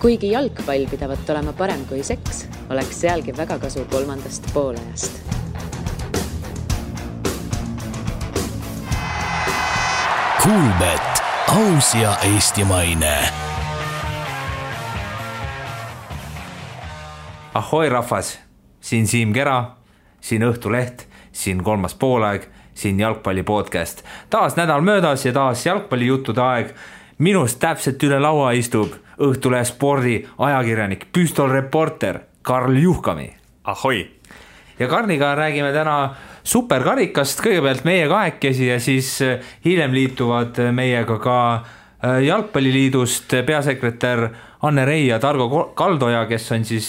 Kuigi jalgpall pidavat olema parem kui seks, oleks sealgi väga kasu 3. poolajast. Kuulbet, aus ja eestimaine. Ahoi rahvas, siin Siim Kera, siin Õhtuleht, siin 3. poolaeg, siin jalgpalli podcast. Taas nädal möödas ja taas jalgpalli juttude aeg. Minust täpselt üle laua istub Õhtulehe spordi ajakirjanik, püstolreporter Karl Juhkami. Ahoi! Ja Karliga räägime täna superkarikast, kõigepealt meie kahekesi ja siis hiljem liituvad meiega ka jalgpalliliidust peasekretär Anne Rei ja Targo Kaldoja, kes on siis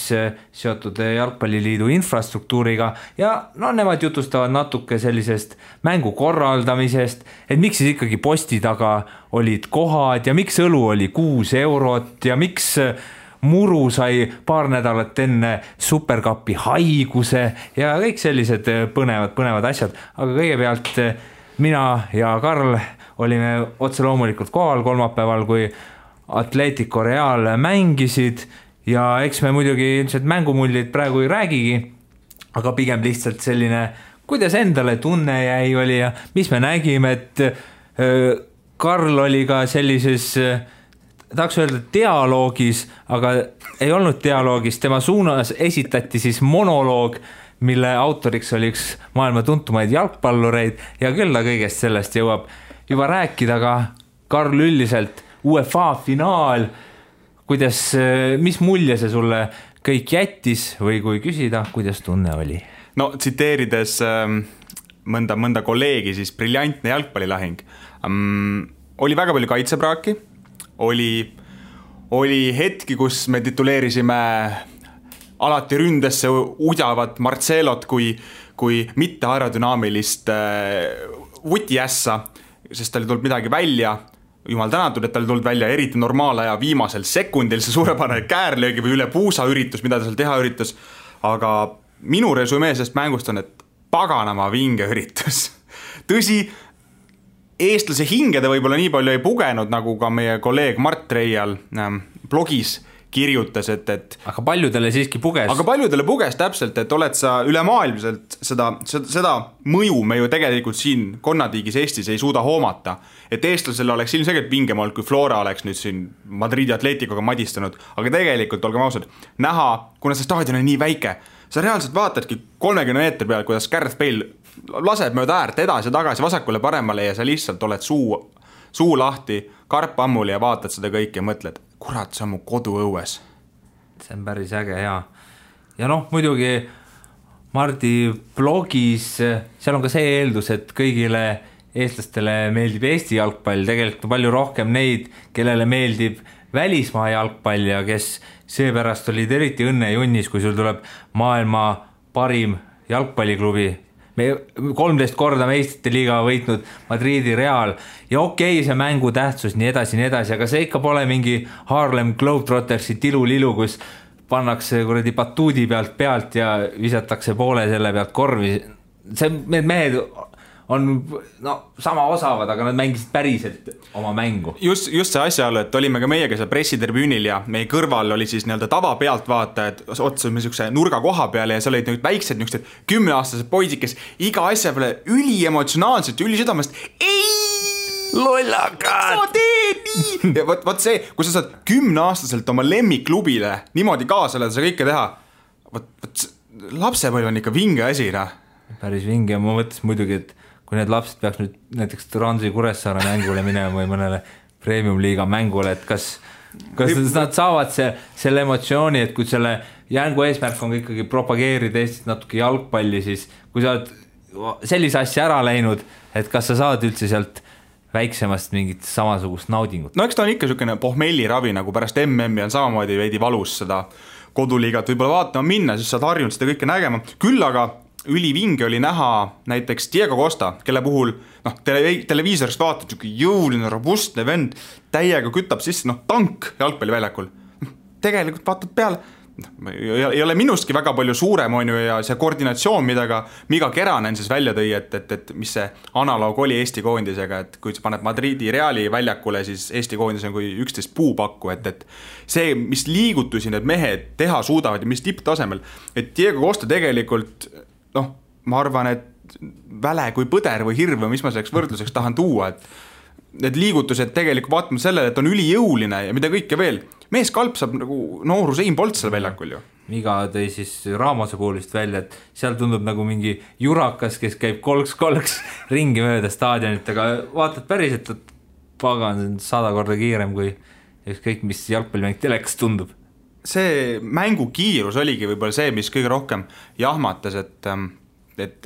seotud jalgpalliliidu infrastruktuuriga ja nemad jutustavad natuke sellisest mängu korraldamisest, et miks siis ikkagi posti taga olid kohad ja miks õlu oli 6 eurot ja miks Muru sai paar nädalat enne superkapi haiguse ja kõik sellised põnevad asjad, aga kõigepealt mina ja Karl olime otse loomulikult kohal kolmapäeval, kui Atletico Real mängisid ja eks me muidugi ilmselt mängumullid praegu ei räägigi, aga pigem lihtsalt selline, kuidas endale tunne jäi oli ja mis me nägime, et Karl oli ka sellises, tahaks öelda dialoogis, aga ei olnud dialoogis, tema suunas esitati siis monoloog, mille autoriks oli üks maailma tuntumaid jalgpallureid ja küll ta kõigest sellest jõuab juba rääkida, aga Karl üldiselt UEFA finaal, kuidas, mis mulje see sulle kõik jättis või kui küsida, kuidas tunne oli? No tsiteerides mõnda kolleegi, siis briljantne jalgpallilahing. Oli väga palju kaitsepraaki, oli hetki, kus me tituleerisime alati ründesse udjavat Marcelot kui mitte aerodünaamilist vutiässa, sest tal tulnud midagi välja. Jumal tänatud, et tal tulnud välja eriti normaalaja viimasel sekundil see suurepärane käärlöögi või üle puusa üritus, mida ta seal teha üritus. Aga minu resümee sellest mängust on, et paganama vinge üritus. Tõsi, eestlase hinge ta võib-olla nii palju ei pugenud, nagu ka meie kolleeg Mart Reial blogis kirjutas, et aga paljudele siiski puges. Aga paljudele puges täpselt, et oled sa ülemaailmselt seda mõju me ju tegelikult siin konnatiigis Eestis ei suuda hoomata. Et eestlasele oleks ilmselgelt vingem olnud, kui Flora oleks nüüd siin Madridi Atleticoga madistanud. Aga tegelikult, olgem ausad, näha, kuna see staadion on nii väike, sa reaalselt vaatadki 30 meetri peal, kuidas Gareth Bale laseb mööda äärt edasi ja tagasi vasakule paremale ja sa lihtsalt oled suu lahti, karp ammuli ja vaatad seda kõike ja mõtled, kurat, see on mu koduõues. See on päris äge, jaa. Ja muidugi Mardi blogis, seal on ka see eeldus, et kõigile eestlastele meeldib Eesti jalgpall, tegelikult palju rohkem neid, kellele meeldib välismaa jalgpall ja kes seepärast olid eriti õnnejunnis, kui sul tuleb maailma parim jalgpalliklubi. Me 13 korda meistrite liiga võitnud Madridi Real ja okei, see mängu tähtsus nii edasi, aga see ikka pole mingi Harlem Globetrottersi tilulilu, kus pannakse kuradi batuudi pealt ja visatakse poole selle pealt korvi. Need mehed on sama osavad, aga nad mängisid päriselt oma mängu. Just see asjaolu, et olime ka meiega seal pressitribüünil ja meie kõrval oli siis tava pealtvaatajad, otsusime niisuguse nurga koha peale ja seal olid väiksed 10-aastased poisid, kes iga asja peale üliemotsionaalselt ja ülisüdamest lollakad! Sa teed nii! Ja võt see, kui sa saad 10-aastaselt oma lemmikklubile niimoodi kaasa sa kõike teha, lapsepõlv on ikka vinge asi, Päris vinge ja ma mõtlesin muidugi, et kui need lapsed peaks nüüd näiteks Transi Kuressaare mängule minema või mõnele premium-liiga mängule, et kas nad saavad selle emotsiooni, et kui selle jängu eesmärk on ikkagi propageerida Eestis natuke jalgpalli, siis kui sa oled sellise asja ära läinud, et kas sa saad üldse sealt väiksemast mingit samasugust naudingut? No eks ta on ikka niisugune pohmelliravi, nagu pärast MM-i on samamoodi veidi valus seda koduliigat võib-olla vaatama minna, siis saad harjunud seda kõike nägema. Küll aga ülivinge oli näha näiteks Diego Costa, kelle puhul televiisorist vaatad jõuline, robustne vend, täiega kütab sisse, tank jalgpalliväljakul. Tegelikult vaatad peale, ei ole minustki väga palju suurem on ju ja see koordinatsioon, mida Miga Keranen siis välja tõi, et mis see analoog oli Eesti koondisega, et kui sa paned Madridi Reali väljakule, siis Eesti koondis on kui 11 puupakku, et see, mis liigutusi need mehed teha suudavad ja mis tipptasemel, et Diego Costa tegelikult, ma arvan, et väle kui põder või hirv või mis ma selleks võrdluseks tahan tuua, et need liigutused tegelikult vaatame sellele, et on ülijõuline ja mida kõike veel. Mees kalpsab nagu noorus Ein Bolt seal väljakul ju. Miga tõi siis Ramose puulist välja, et seal tundub nagu mingi jurakas, kes käib kolks ringi mööda staadionit, aga vaatad päriselt, et pagan 100 korda kiirem kui ükskõik, mis jalgpallimäng telekas tundub. See mängu kiirus oligi võib-olla see, mis kõige rohkem jahmatas, et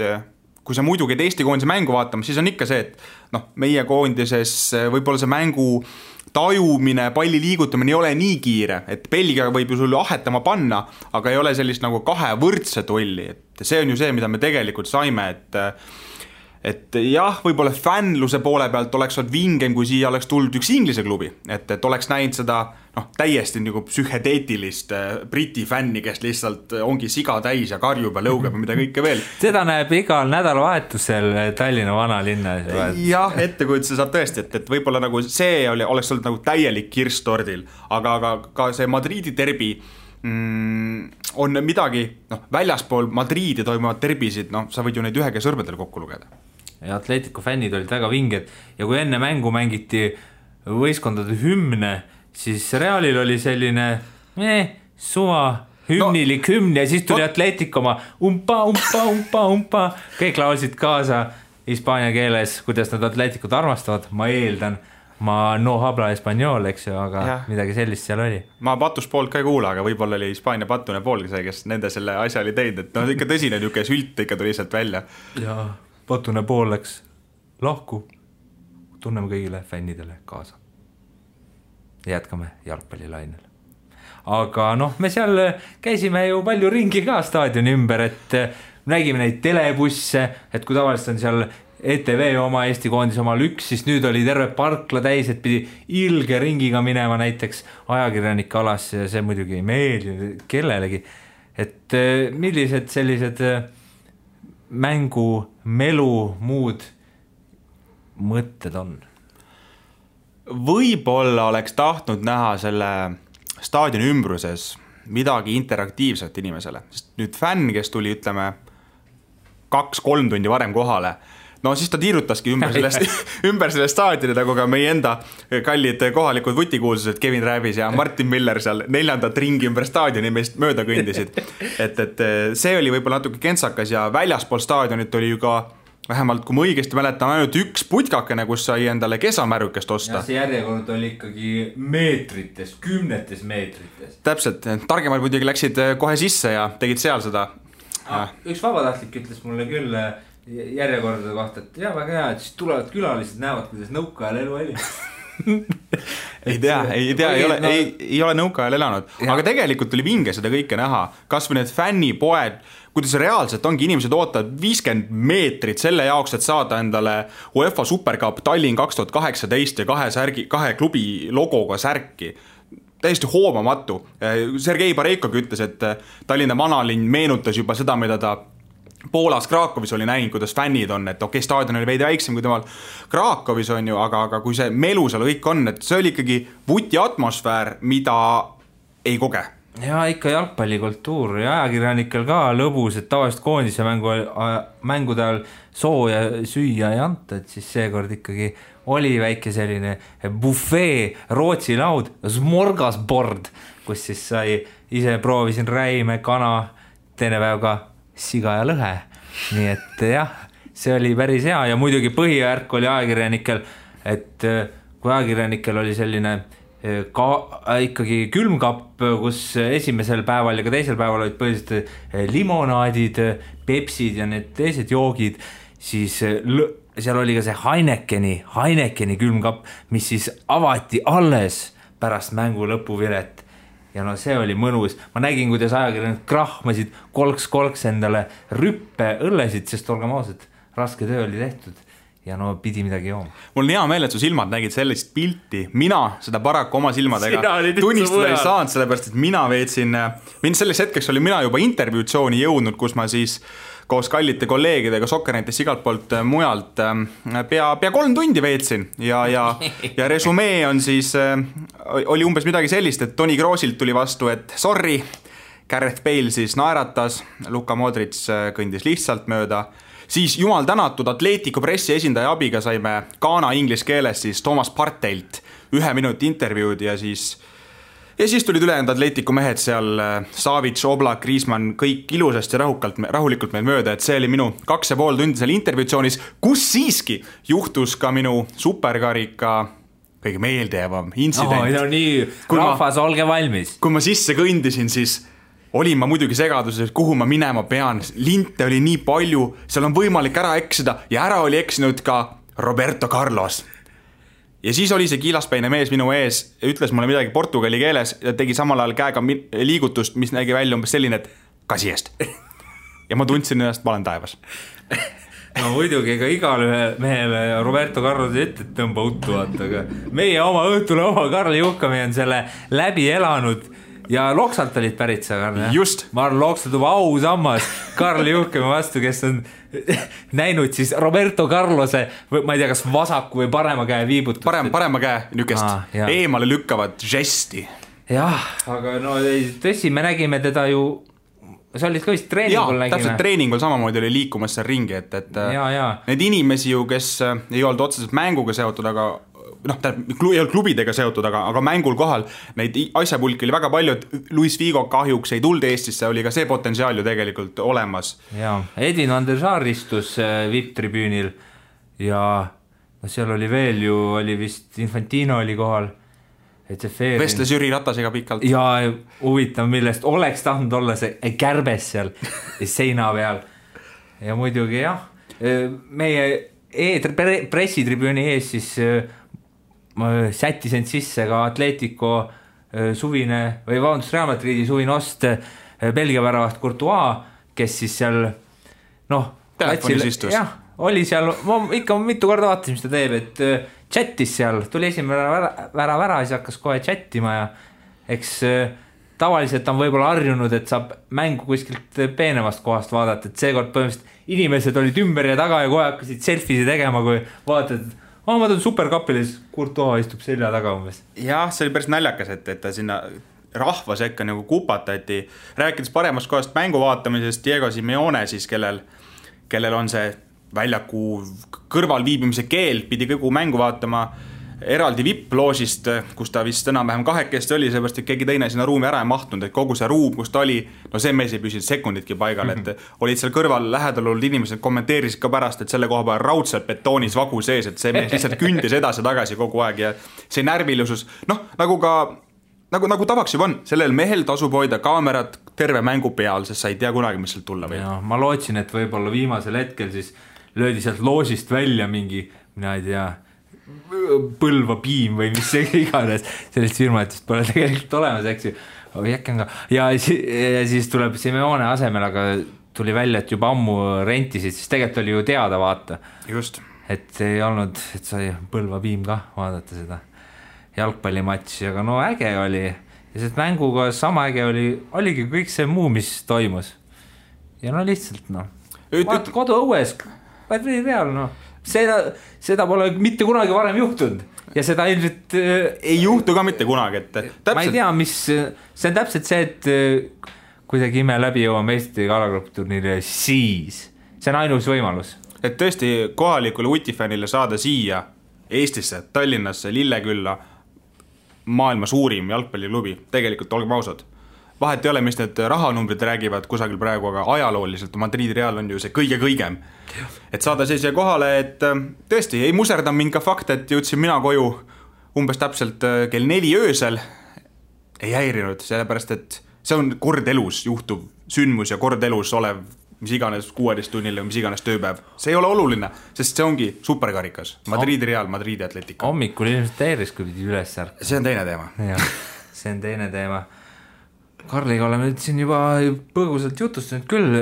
kui sa muidu käid Eesti koondise mängu vaatama, siis on ikka see, et meie koondises võib-olla see mängu tajumine, palli liigutamine ei ole nii kiire, et Belgia võib ju sulle ahetama panna, aga ei ole sellist nagu kahe võrdse tolli, et see on ju see, mida me tegelikult saime, et jah, võib-olla fännluse poole pealt oleks olnud vingem, kui siia oleks tulnud üks Inglise klubi, et oleks näinud seda täiesti nagu psühhedeetilist briti fänni, kes lihtsalt ongi siga täis ja karjub ja lõugab ja mida kõike veel. Seda näeb igal nädalavahetusel Tallinna vanalinnas. Jah, ettekujutuse saab tõesti, et võib-olla nagu see oleks olnud nagu täielik kirss tordil, aga ka see Madridi derbi on midagi, väljaspool Madridi toimuvad derbisid, sa võid ju neid ühega sõrmedel kokku lugeda. Ja Atletico fännid olid väga vinged ja kui enne mängu mängiti võistkondade hümne, siis Realil oli selline suva hümnilik hümn ja siis tuli Atletico oma umpa, kõik laulsid kaasa hispaania keeles, kuidas nad Atleticut armastavad, ma eeldan, ma no habla español, eks ju, aga midagi sellist seal oli. Ma patus poolt ka ei kuula, aga võib-olla oli Hispaania patune poolgi see, kes nende selle asja oli teinud, et ikka tõsine niuke sült ikka tuli sealt välja. Ja patune pool läks lahku, tunneme kõigile fännidele kaasa. Jätkame jalgpallilainel. Aga me seal käisime ju palju ringi ka staadioni ümber, et nägime neid telebusse, et kui tavaliselt on seal ETV oma Eesti koondis omal üks, siis nüüd oli terve parkla täis, et pidi ilge ringiga minema näiteks ajakirjanike alasse ja see muidugi ei meeldi kellelegi. Et millised sellised mängu, melu, muud mõtted on? Võib-olla oleks tahtnud näha selle staadioni ümbruses midagi interaktiivset inimesele, sest nüüd fänn, kes tuli, ütleme, 2-3 tundi varem kohale, siis ta tiirutaski ümber selle staadioni, nagu ka meie enda kallid kohalikud vutikuulsused Kevin Rääbis ja Martin Miller seal 4. ringi ümber staadioni meist mööda kõndisid. Et see oli võib-olla natuke kentsakas ja väljaspool staadionit oli ju ka vähemalt, kui ma õigesti mäletan, ainult üks putkakene, kus sai endale kesamärukest osta. Ja see järjekord oli ikkagi meetrites, 10 meetrites. Täpselt, targemad muidugi läksid kohe sisse ja tegid seal seda. Üks vabatahtlik ütles mulle küll järjekordade kohta, et väga hea, et siis tulevad külalised, näevad, kuidas nõukaajal elu oli. ei tea, ei ole nõukaajal elanud, aga tegelikult oli vinge seda kõike näha, kas või need fännipoed, kuidas reaalselt ongi inimesed ootavad 50 meetrit selle jaoks, et saada endale UEFA Supercup Tallinn 2018 ja kahe klubi logoga särki. Täiesti hoomamatu. Sergei Bareikogi ütles, et Tallinna vanalinn meenutas juba seda, mida ta Poolas Krakowis oli näinud, kuidas fännid on, et okei, staadion oli veidi väiksem kui temal Krakowis on ju, aga kui see melu seal kõik on, et see oli ikkagi vuti atmosfäär, mida ei koge. Ja ikka jalgpallikultuur ja ajakirjanikel ka lõbus, et tavaliselt koondise mängude ajal sooja süüa ei anta, et siis seekord ikkagi oli väike selline buffet, Rootsi laud, smorgasbord, kus siis sai, ise proovisin räime, kana, teine päev ka siga ja lõhe, nii et jah, see oli päris hea ja muidugi põhijärk oli ajakirjanikel, et kui ajakirjanikel oli selline ikkagi külmkapp, kus esimesel päeval ja ka teisel päeval olid põhiliselt limonaadid, pepsid ja need teised joogid, siis seal oli ka see Heinekeni külmkapp, mis siis avati alles pärast mängu lõpuvilet. Ja see oli mõnus. Ma nägin, kuidas ajakirjanikud krahmasid kolks endale rüppe õllesid, sest olgem ausad, raske töö oli tehtud. ja no pidi midagi jooma. Mul on hea meel, et su silmad nägid sellist pilti, mina seda paraku oma silmadega tunnistada ei saanud, sellepärast, et mina veetsin, selleks hetkeks oli mina juba intervjuutsiooni jõudnud, kus ma siis koos kallite kolleegidega Sokkernetist igalt poolt mujalt pea 3 tundi veetsin ja resumee on siis, oli umbes midagi sellist, et Toni Kroosilt tuli vastu, et sorry, Gareth Bale siis naeratas, Luka Modric kõndis lihtsalt mööda, siis jumal tänatud Atletico pressi esindaja abiga saime Ghana inglise keeles siis Thomas Parteilt 1 minuti intervjuud ja siis tulid ülejäänud Atletico mehed seal, Savic, Oblak, Griezmann, kõik ilusasti rahulikult meil mööda, et see oli minu 2,5 tundi seal intervjuutsioonis, kus siiski juhtus ka minu superkarika kõige meeldejäävam intsident. No nii, rahvas, olge valmis. Kui ma sisse kõndisin, siis olin ma muidugi segaduses, kuhu ma minema pean, linte oli nii palju, seal on võimalik ära eksida ja ära oli eksinud ka Roberto Carlos. Ja siis oli see kiilaspäine mees minu ees ja ütles mulle midagi portugali keeles ja tegi samal ajal käega liigutust, mis nägi välja umbes selline, et kasi eest. Ja ma tundsin ennast, ma olen taevas. No muidugi, ega igale mehele Roberto Carlos ette tõmba uttu vaata, aga meie oma õhtule oma Karli Juhkami on selle läbi elanud ja Loksalt olid pärit sa, Karl. Just. Ma arvan, Loksalt juba ausammas Karli Juhkami vastu, kes on näinud siis Roberto Carlose, ma ei tea, kas vasaku või parema käe viibutust. Parema käe nükest eemale lükkavat žesti. Jah, aga no tõsi, me nägime teda ju, sa olid ka vist treeningul nägime. Täpselt treeningul samamoodi oli liikumas seal ringi, et need inimesi ju, kes ei olnud otseselt mänguga seotud, aga ei olnud klubidega seotud, aga mängul kohal neid asjapulki oli väga palju, et Luis Figo kahjuks ei tulnud Eestisse, oli ka see potentsiaal ju tegelikult olemas. Ja, Edin van der Sar istus VIP-tribüünil ja seal oli veel ju, oli vist Infantino oli kohal. Vestles Jüri Ratasega pikalt. Ja huvitav, millest oleks tahtnud olla see kärbes seal seina peal. Ja muidugi jah, meie pressitribüüni ees siis sättis end sisse ka Atletico suvine või vabandust Real Madridi suvine ost Belgia väravast Courtois, kes siis seal telefonis istus. Jah, oli seal, ma ikka mitu korda vaatasin, mis ta teeb, et chattis seal, tuli esimene vära, siis hakkas kohe chattima ja eks tavaliselt on võib-olla harjunud, et saab mängu kuskilt peenemast kohast vaadata, et seekord põhimõtteliselt inimesed olid ümber ja taga ja kohe hakkasid selfie'si tegema, kui vaatad, ma tulen superkapilis, Courtois istub selja taga umbes. Jah, see oli päris naljakas, et ta sinna rahva sekka nagu kupatati. Rääkides paremast kohast mängu vaatamisest, Diego Simeone siis, kellel on see väljaku kõrval viibimise keel, pidi kogu mängu vaatama eraldi VIP-loosist, kus ta vist enam-vähem 2 oli, seepärast, et keegi teine sinna ruumi ära ei mahtnud, et kogu see ruum, kus ta oli, see mees ei püsinud sekunditki paigal, et olid seal kõrval lähedal olnud inimesed, kommenteerisid ka pärast, et selle koha peal raudselt betoonis vagu sees, et see mees lihtsalt kündis edasi tagasi kogu aeg ja see närvilisus, nagu tavaks juba on, sellel mehel tasub hoida kaamerat terve mängu peal, sest sa ei tea kunagi, mis sealt tulla võib. Ma lootsin, et võib-olla viimasel hetkel siis löödi sealt loosist välja mingi, mina ei tea, Põlva piim või mis iganes, sellist firmatist pole tegelikult olemas, eks ju. Ja siis tuleb Simeone asemel, aga tuli välja, et juba ammu rentisid, siis tegelikult oli ju teada vaata. Just. Et ei olnud, et sai Põlva piim ka vaadata seda jalgpallimatši, aga no äge oli. Ja see mänguga sama äge oligi kõik see muu, mis toimus. Ja no lihtsalt vaat kodu õues, real seda pole mitte kunagi varem juhtunud ja seda ilmselt ei juhtu ka mitte kunagi, et täpselt. Ma ei tea, see on täpselt see, et kuidagi ime läbi jõuame Eesti kalagruppturniiri, siis see on ainus võimalus. Et tõesti kohalikule utifännile saada siia Eestisse, Tallinnasse, Lillekülla maailma suurim jalgpalliklubi, tegelikult olgem ausad. Vahet ei ole, mis need rahanumbrid räägivad kusagil praegu, aga ajalooliselt Madridi Real on ju see kõigem. Et saada siia kohale, et tõesti ei muserda mind ka fakt, et jõudsin mina koju umbes täpselt kell 4 öösel. Ei häirinud, sellepärast, et see on kord elus juhtuv sündmus ja kord elus olev mis iganes 16 tunnil või mis iganes tööpäev. See ei ole oluline, sest see ongi superkarikas. Madridi Real, Madridi Atletico. Hommikul ilmselt häiris, kui pidi üles ärkama. See on teine teema. See on teine teema. Karliga oleme siin juba põgusalt jutustanud küll.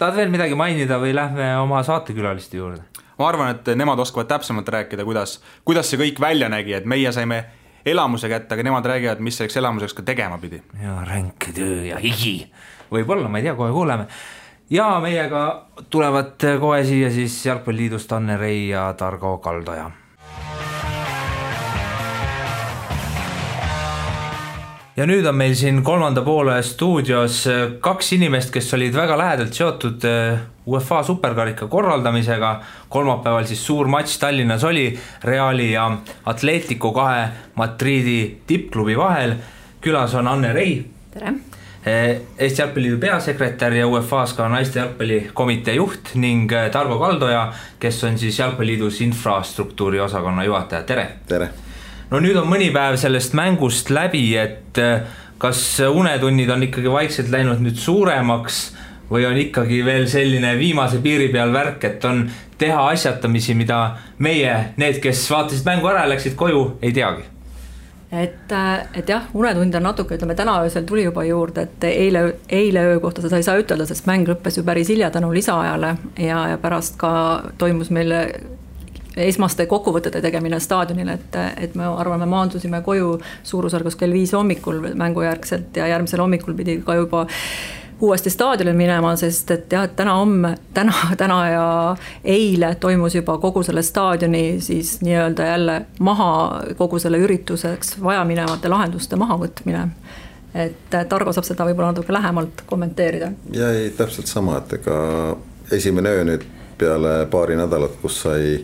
Tahad veel midagi mainida või lähme oma saatekülaliste juurde? ma arvan, et nemad oskavad täpsemalt rääkida, kuidas see kõik välja nägi, et meie saime elamuse kätte, aga nemad räägivad, mis selleks elamuseks ka tegema pidi. Ja ränk töö ja higi. Võib-olla, ma ei tea, kohe kuuleme. Ja meiega tulevad kohe siia siis Jalgpalliliidust Anne Rei ja Targo Kaldoja. Ja nüüd on meil siin kolmanda poole stuudios kaks inimest, kes olid väga lähedalt seotud UEFA superkarika korraldamisega. Kolmapäeval siis suur matš Tallinnas oli Reali ja Atletico kahe Madridi tippklubi vahel. Külas on Anne Rei. Tere. Eesti Jalgpalliliidu peasekretär ja UEFA-s ka naiste jalgpallikomitee juht ning Targo Kaldoja, kes on siis Jalgpalliliidus infrastruktuuri osakonna juhataja. Tere. Tere. No nüüd on mõni päev sellest mängust läbi, et kas unetunnid on ikkagi vaikselt läinud nüüd suuremaks või on ikkagi veel selline viimase piiri peal värk, et on teha asjatamisi, mida meie, need, kes vaatasid mängu ära ja läksid koju, ei teagi? Et jah, unetund on natuke, ütleme täna öösel tuli juba juurde, et eile öö kohta seda ei saa ütelda, sest mäng lõppes ju päris hilja tänu lisaajale ja pärast ka toimus meil esmaste kokkuvõtete tegemine staadionil, et me arvame, maandusime koju suurusjärgus kell 5 hommikul mängujärgselt ja järgmisel hommikul pidi ka juba uuesti staadionil minema, sest et jah, täna ja eile toimus juba kogu selle staadioni siis nii-öelda jälle maha kogu selle ürituseks vajaminevate lahenduste mahavõtmine. Et Targo saab seda võib-olla natuke lähemalt kommenteerida. Ja ei, täpselt sama, et ega esimene öö nüüd peale paari nädalat, kus sai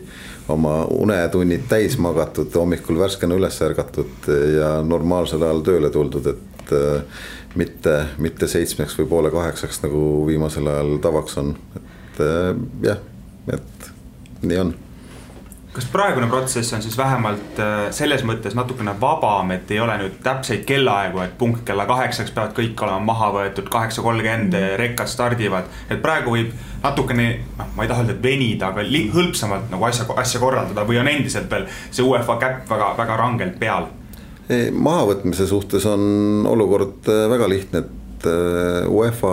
oma unetunnid täis magatud, hommikul värskena üles ärgatud ja normaalsel ajal tööle tuldud, et mitte 7 või 7:30 nagu viimasel ajal tavaks on. Et jah, et nii on. Kas praegune protsess on siis vähemalt selles mõttes natukene vabam, et ei ole nüüd täpseid kellaaegu, et punkt kella 8 peavad kõik olema maha võetud, 8:30 rekkad stardivad, et praegu võib natukene, ma ei taha öelda, et venida, aga hõlpsamalt nagu asja korraldada või on endiselt veel see UEFA käpp väga rangelt peal? Mahavõtmise suhtes on olukord väga lihtne, et UEFA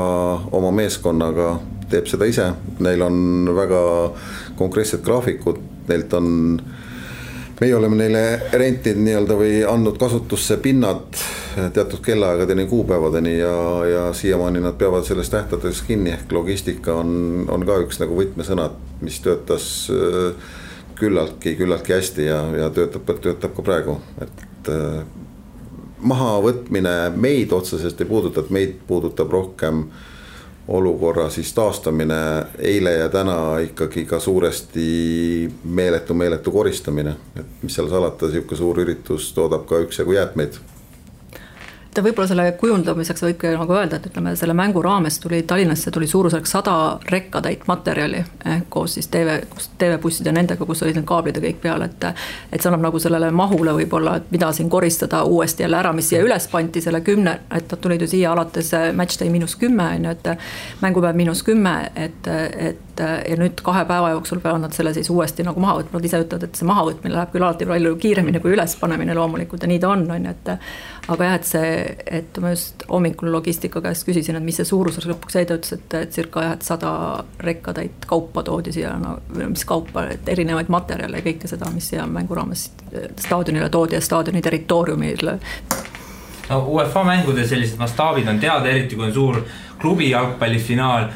oma meeskonnaga teeb seda ise, neil on väga konkreetsed graafikud, meie oleme neile rentinud nii-öelda või andnud kasutusse pinnad teatud kellaaegadeni, kuupäevadeni ja siiamaani nad peavad sellest tähtades kinni, ehk logistika on ka üks nagu võtmesõnad, mis töötas küllaltki hästi ja töötab ka praegu, et mahavõtmine meid otseselt ei puuduta, et meid puudutab rohkem olukorra siis taastamine, eile ja täna ikkagi ka suuresti meeletu koristamine, et mis seal salata, siuke suur üritus toodab ka üksjagu jäätmeid. Võib-olla selle kujundamiseks võibki nagu öelda, et ütleme, selle mängu raames Tallinnasse tuli suurusjärk 100 rekkatäit materjali koos siis TV-bussid ja nendega, kus olid need kaablid ja kõik peal, et see annab nagu sellele mahule võib-olla, et mida siin koristada uuesti jälle ära, mis siia üles panti selle 10, et nad tulid ju siia alates matchday -10, et mängupäev -10, ja nüüd 2 päeva jooksul peavad nad selle siis uuesti nagu maha võtma, nad ise ütlevad, et see mahavõtmine läheb küll alati palju kiiremini kui ülespanemine loomulikult ja nii ta on, aga jah, et ma just hommikul logistika käest küsisin, et mis see suuruseks lõpuks jäi, ta ütles, et circa 100 rekkatäit kaupa toodi siia, mis kaupa, et erinevaid materjale ja kõike seda, mis siia mängu raames staadionile toodi ja staadioni territooriumile. No, UEFA mängude sellised mastaabid on teada, eriti kui on suur klubi jalgpallifinaal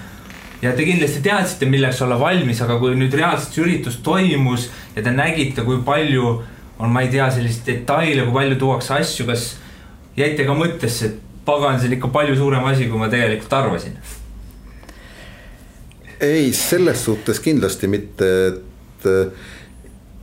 ja te kindlasti teadsite, milleks olla valmis, aga kui nüüd reaalselt üritus toimus ja te nägite, kui palju on, ma ei tea, sellist detaile, kui palju tuuakse asju, kas jäite ka mõttesse, et pagan, see on ikka palju suurem asi, kui ma tegelikult arvasin? Ei, selles suhtes kindlasti mitte, et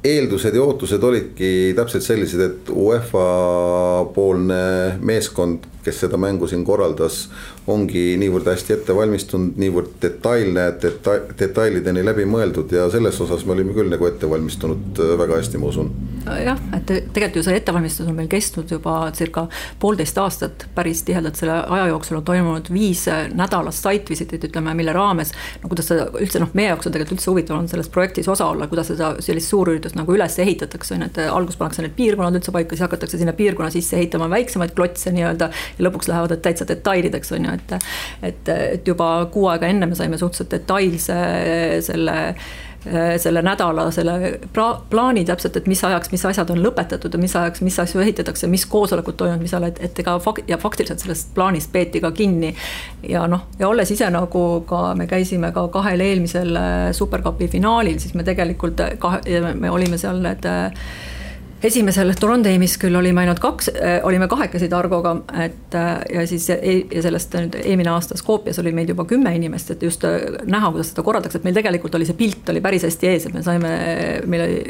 eeldused ja ootused olidki täpselt sellised, et UEFA poolne meeskond, kes seda mängu siin korraldas, ongi niivõrd hästi ette valmistunud, niivõrd detailideni läbi mõeldud ja selles osas me olime küll nagu ette valmistunud väga hästi, ma usun. Jah, et tegelikult ju see ettevalmistus on meil kestnud juba circa 1,5 aastat päris tihedalt, selle aja jooksul on toimunud 5 nädalast site-visitit, ütleme, mille raames, no kuidas seda üldse, meie jaoks on tegelikult üldse huvitav on selles projektis osa olla, kuidas seda sellist suurüritust nagu üles ehitatakse, et algus pannakse need piirkonnad üldse paika, siis hakatakse sinna piirkonna sisse ehitama väiksemaid klotse nii-öelda ja lõpuks lähevad täitsa detailideks, on ju, et juba 6 aega enne me saime suhteliselt detailse selle selle nädala, selle plaani täpselt, et mis ajaks, mis asjad on lõpetatud ja mis ajaks, mis asju ehitatakse, mis koosolekud toimunud, mis ajal, et ega ja faktiliselt sellest plaanist peeti ka kinni. Ja ja olles ise nagu ka, me käisime ka 2 eelmisel Supercupi finaalil, siis me tegelikult me olime seal need esimesel Trondheimis küll olime ainult 2, olime 2 Targoga, et ja siis ja sellest nüüd eelmine aasta Skopjas oli meil juba 10 inimest, et just näha, kuidas seda korraldakse, et meil tegelikult oli see pilt oli päris hästi ees, et me saime,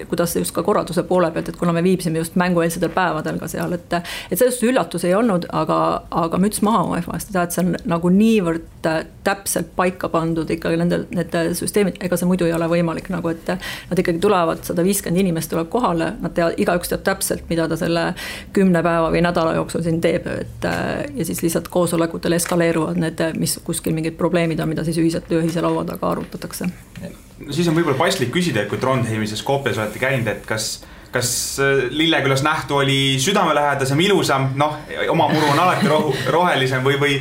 kuidas just ka korralduse poole pealt, et kuna me viibisime just mängueelsetel päevadel ka seal, et sellest üllatus ei olnud, aga müts maha UEFA-st, et see on nagu niivõrd täpselt paika pandud ikkagi need süsteemid, ega see muidu ei ole võimalik, nagu et nad ikkagi tulevad, 150 inimest tuleb kohale, nad teavad üks teab täpselt, mida ta selle 10 päeva või nädala jooksul siin teeb, et ja siis lihtsalt koosolekutel eskaleeruvad need, mis kuskil mingid probleemid on, mida siis ühise laua taga arutatakse. Siis on võib-olla paslik küsida, et kui Trondheimis ja Skopjas olete käinud, et kas Lillekülas nähtu oli südamelähedasem, ilusam, oma muru on alati rohelisem või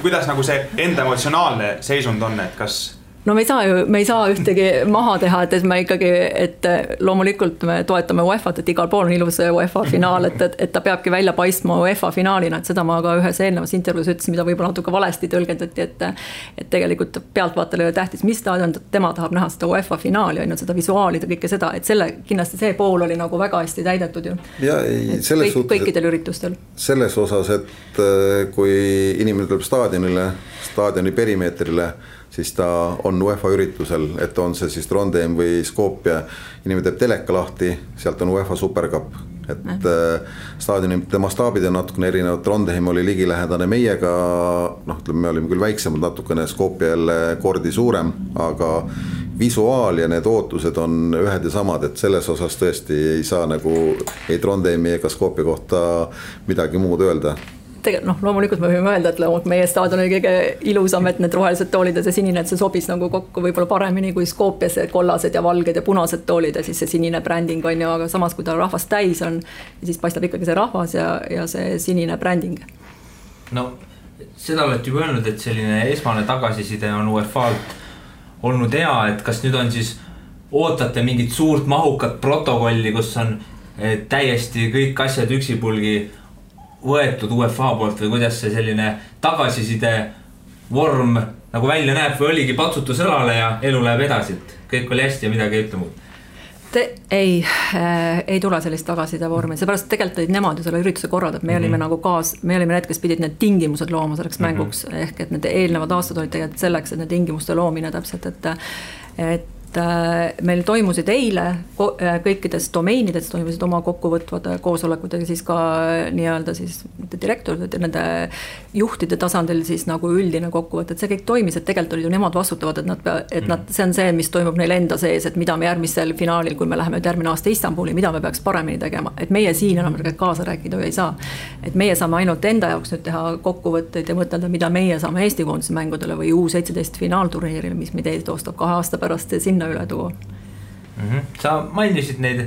kuidas nagu see enda emotsionaalne seisund on, et kas... No me ei saa ühtegi maha teha, et me ikkagi, et loomulikult me toetame UEFA-t, et igal pool on ilus UEFA finaal, et ta peabki välja paistma UEFA finaalina, et seda ma ka ühes eelnevas intervjuus ütlesin, mida võib-olla natuke valesti tõlgendati, et tegelikult pealtvaatajale tähtis, mis staadion tema tahab näha seda UEFA finaali, ainult seda visuaalida, kõike seda, et kindlasti see pool oli nagu väga hästi täidetud ju. Ja kõikidel üritustel. Selles osas, et kui inimene tuleb staadioni perimeetrile, siis ta on UEFA üritusel, et on see siis Trondheim või Skopje, inimene teeb teleka lahti, sealt on UEFA Supercup, et staadionite mastaabid on natukene erinevad, Trondheim oli ligilähedane meiega, me olime küll väiksemad natukene, Skopje jälle kordi suurem, aga visuaal ja need ootused on ühed ja samad, et selles osas tõesti ei saa nagu ei Trondheimi ega Skopje kohta midagi muud öelda. Loomulikult me võime öelda, et meie staadion oli kõige ilusam, et need rohelised toolid ja see sinine, et see sobis nagu kokku võib-olla paremini kui Skopjas kollased ja valged ja punased toolid ja siis see sinine bränding on ju, aga samas kui ta rahvast täis on, siis paistab ikkagi see rahvas ja see sinine bränding. Seda olete juba öelnud, et selline esmane tagasiside on UEFA-lt olnud hea, et kas nüüd on siis ootate mingit suurt mahukat protokolli, kus on täiesti kõik asjad üksipulgi võetud UEFA poolt või kuidas see selline tagasiside vorm nagu välja näeb või oligi patsutus õlale ja elu läheb edasi, et kõik oli hästi ja midagi ei ütle muud? Ei tule sellist tagasiside vormi, seepärast tegelikult olid nemad ju selle ürituse korraldab, me olime nagu me olime need, kes pidid need tingimused looma selleks mänguks, ehk et need eelnevad aastad olid tegelikult selleks, et need tingimuste loomine täpselt, et meil toimusid eile kõikides domeenides toimusid oma kokkuvõtvad koosolekud ja siis ka nii-öelda siis direktorid ja nende juhtide tasandil siis nagu üldine kokkuvõte, et see kõik toimis, et tegelikult olid ju nemad vastutavad, et see on see, mis toimub neil enda sees, et mida me järgmisel finaalil, kui me läheme järgmine aasta Istanbuli, mida me peaks paremini tegema, et meie siin enam kaasa rääkida ei saa, et meie saame ainult enda jaoks nüüd teha kokkuvõtteid ja mõtelda, mida meie saame Eesti koondise mängudele või U17 finaalturniiril, mis meid eestostab 2 aasta pärast sinna üle tuua. Sa mainisid neid,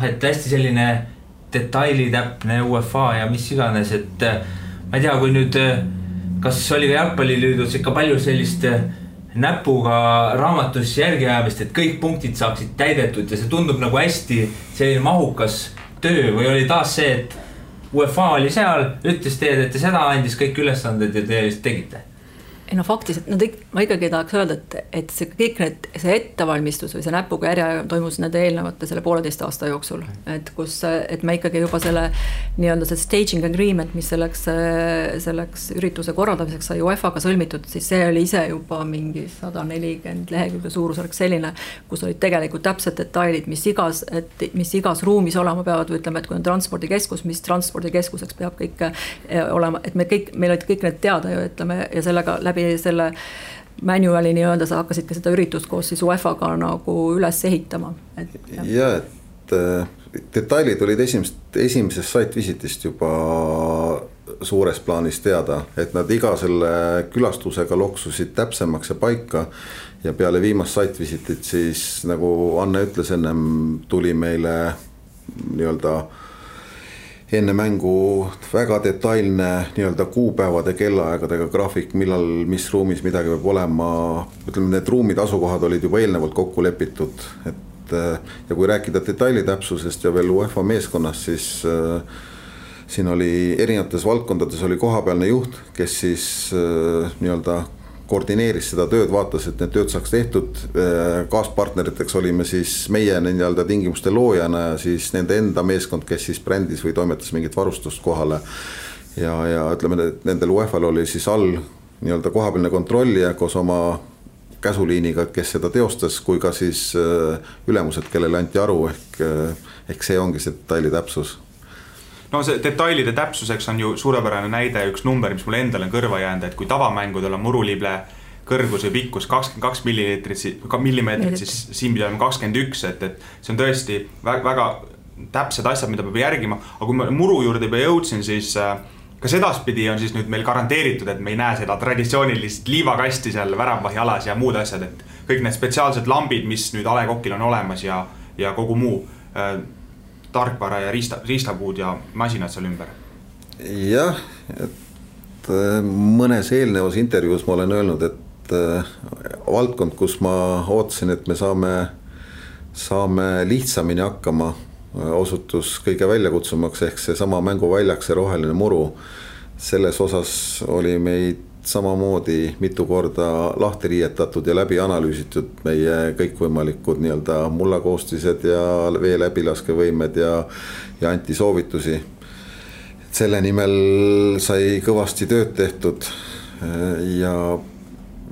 et hästi selline detailitäpne UEFA ja mis iganes, et ma ei tea, kui nüüd, kas oli ka jalgpalliliidus ikka palju sellist näpuga raamatus järgiajamist, et kõik punktid saaksid täidetud ja see tundub nagu hästi selline mahukas töö või oli taas see, et UEFA oli seal, ütles teed, et seda andis kõik ülesanded ja te tegite? Faktiliselt, ma ikkagi tahaks öelda, et see kõik see ettevalmistus või see näpuga järje toimus nende eelnevate selle 1,5 aasta jooksul, et me ikkagi juba selle nii-öelda see staging agreement, mis selleks ürituse korraldamiseks sai UEFA-ga sõlmitud, siis see oli ise juba mingi 140 lehekülge suurusjärk selline, kus olid tegelikult täpsed detailid, mis igas ruumis olema peavad, või ütleme, et kui on transpordikeskus, mis transpordikeskuseks peab kõik olema, et meil olid kõik need teada ju, ütleme, ja sellega läbi selle manuali nii-öelda sa hakkasid ka seda üritust koos siis UEFA-ga nagu üles ehitama. Ja, et detailid olid esimesest site-visitist juba suures plaanis teada, et nad iga selle külastusega loksusid täpsemaks ja paika ja peale viimast site-visitit siis, nagu Anne ütles ennem, tuli meile nii-öelda enne mängu väga detailne nii-öelda kuupäevade kellaaegadega graafik, millal, mis ruumis midagi peab olema. Ütleme, need ruumid, asukohad olid juba eelnevalt kokku lepitud, et ja kui rääkida detailitäpsusest ja veel UEFA meeskonnast, siis siin oli erinevates valdkondades oli kohapealne juht, kes siis nii-öelda koordineeris seda tööd, vaatas, et need tööd saaks tehtud. Kaaspartneriteks olime siis meie nii-öelda tingimuste loojana ja siis nende enda meeskond, kes siis brändis või toimetas mingit varustust kohale. Ja ütleme, et nendel UEFA-l oli siis all nii-öelda kohapealne kontrollija koos oma käsuliiniga, kes seda teostas, kui ka siis ülemused, kellele anti aru, ehk see ongi see detaili täpsus. No see detailide täpsuseks on ju suurepärane näide üks number, mis mulle endale on kõrva jäänud, et kui tavamängudel on murulible kõrgus või pikkus 22 millimeetrit, siis siin pidi olema 21, et see on tõesti väga täpsed asjad, mida peab järgima. Aga kui ma muru juurde juba jõudsin, siis ka sedaspidi on siis nüüd meil garanteeritud, et me ei näe seda traditsioonilist liivakasti seal väravvahi alas ja muud asjad, et kõik need spetsiaalsed lambid, mis nüüd A. Le Coqil on olemas ja kogu muu tarkvara ja riistapuud ja masinad seal ümber. Jah, et mõnes eelnevas intervjuus ma olen öelnud, et valdkond, kus ma ootasin, et me saame lihtsamini hakkama, osutus kõige väljakutsumaks ehk see sama mänguväljak, see roheline muru. Selles osas oli meid samamoodi mitu korda lahti riietatud ja läbi analüüsitud meie kõikvõimalikud nii-öelda mullakoostised ja vee läbilaskevõimed ja anti soovitusi. Selle nimel sai kõvasti tööd tehtud ja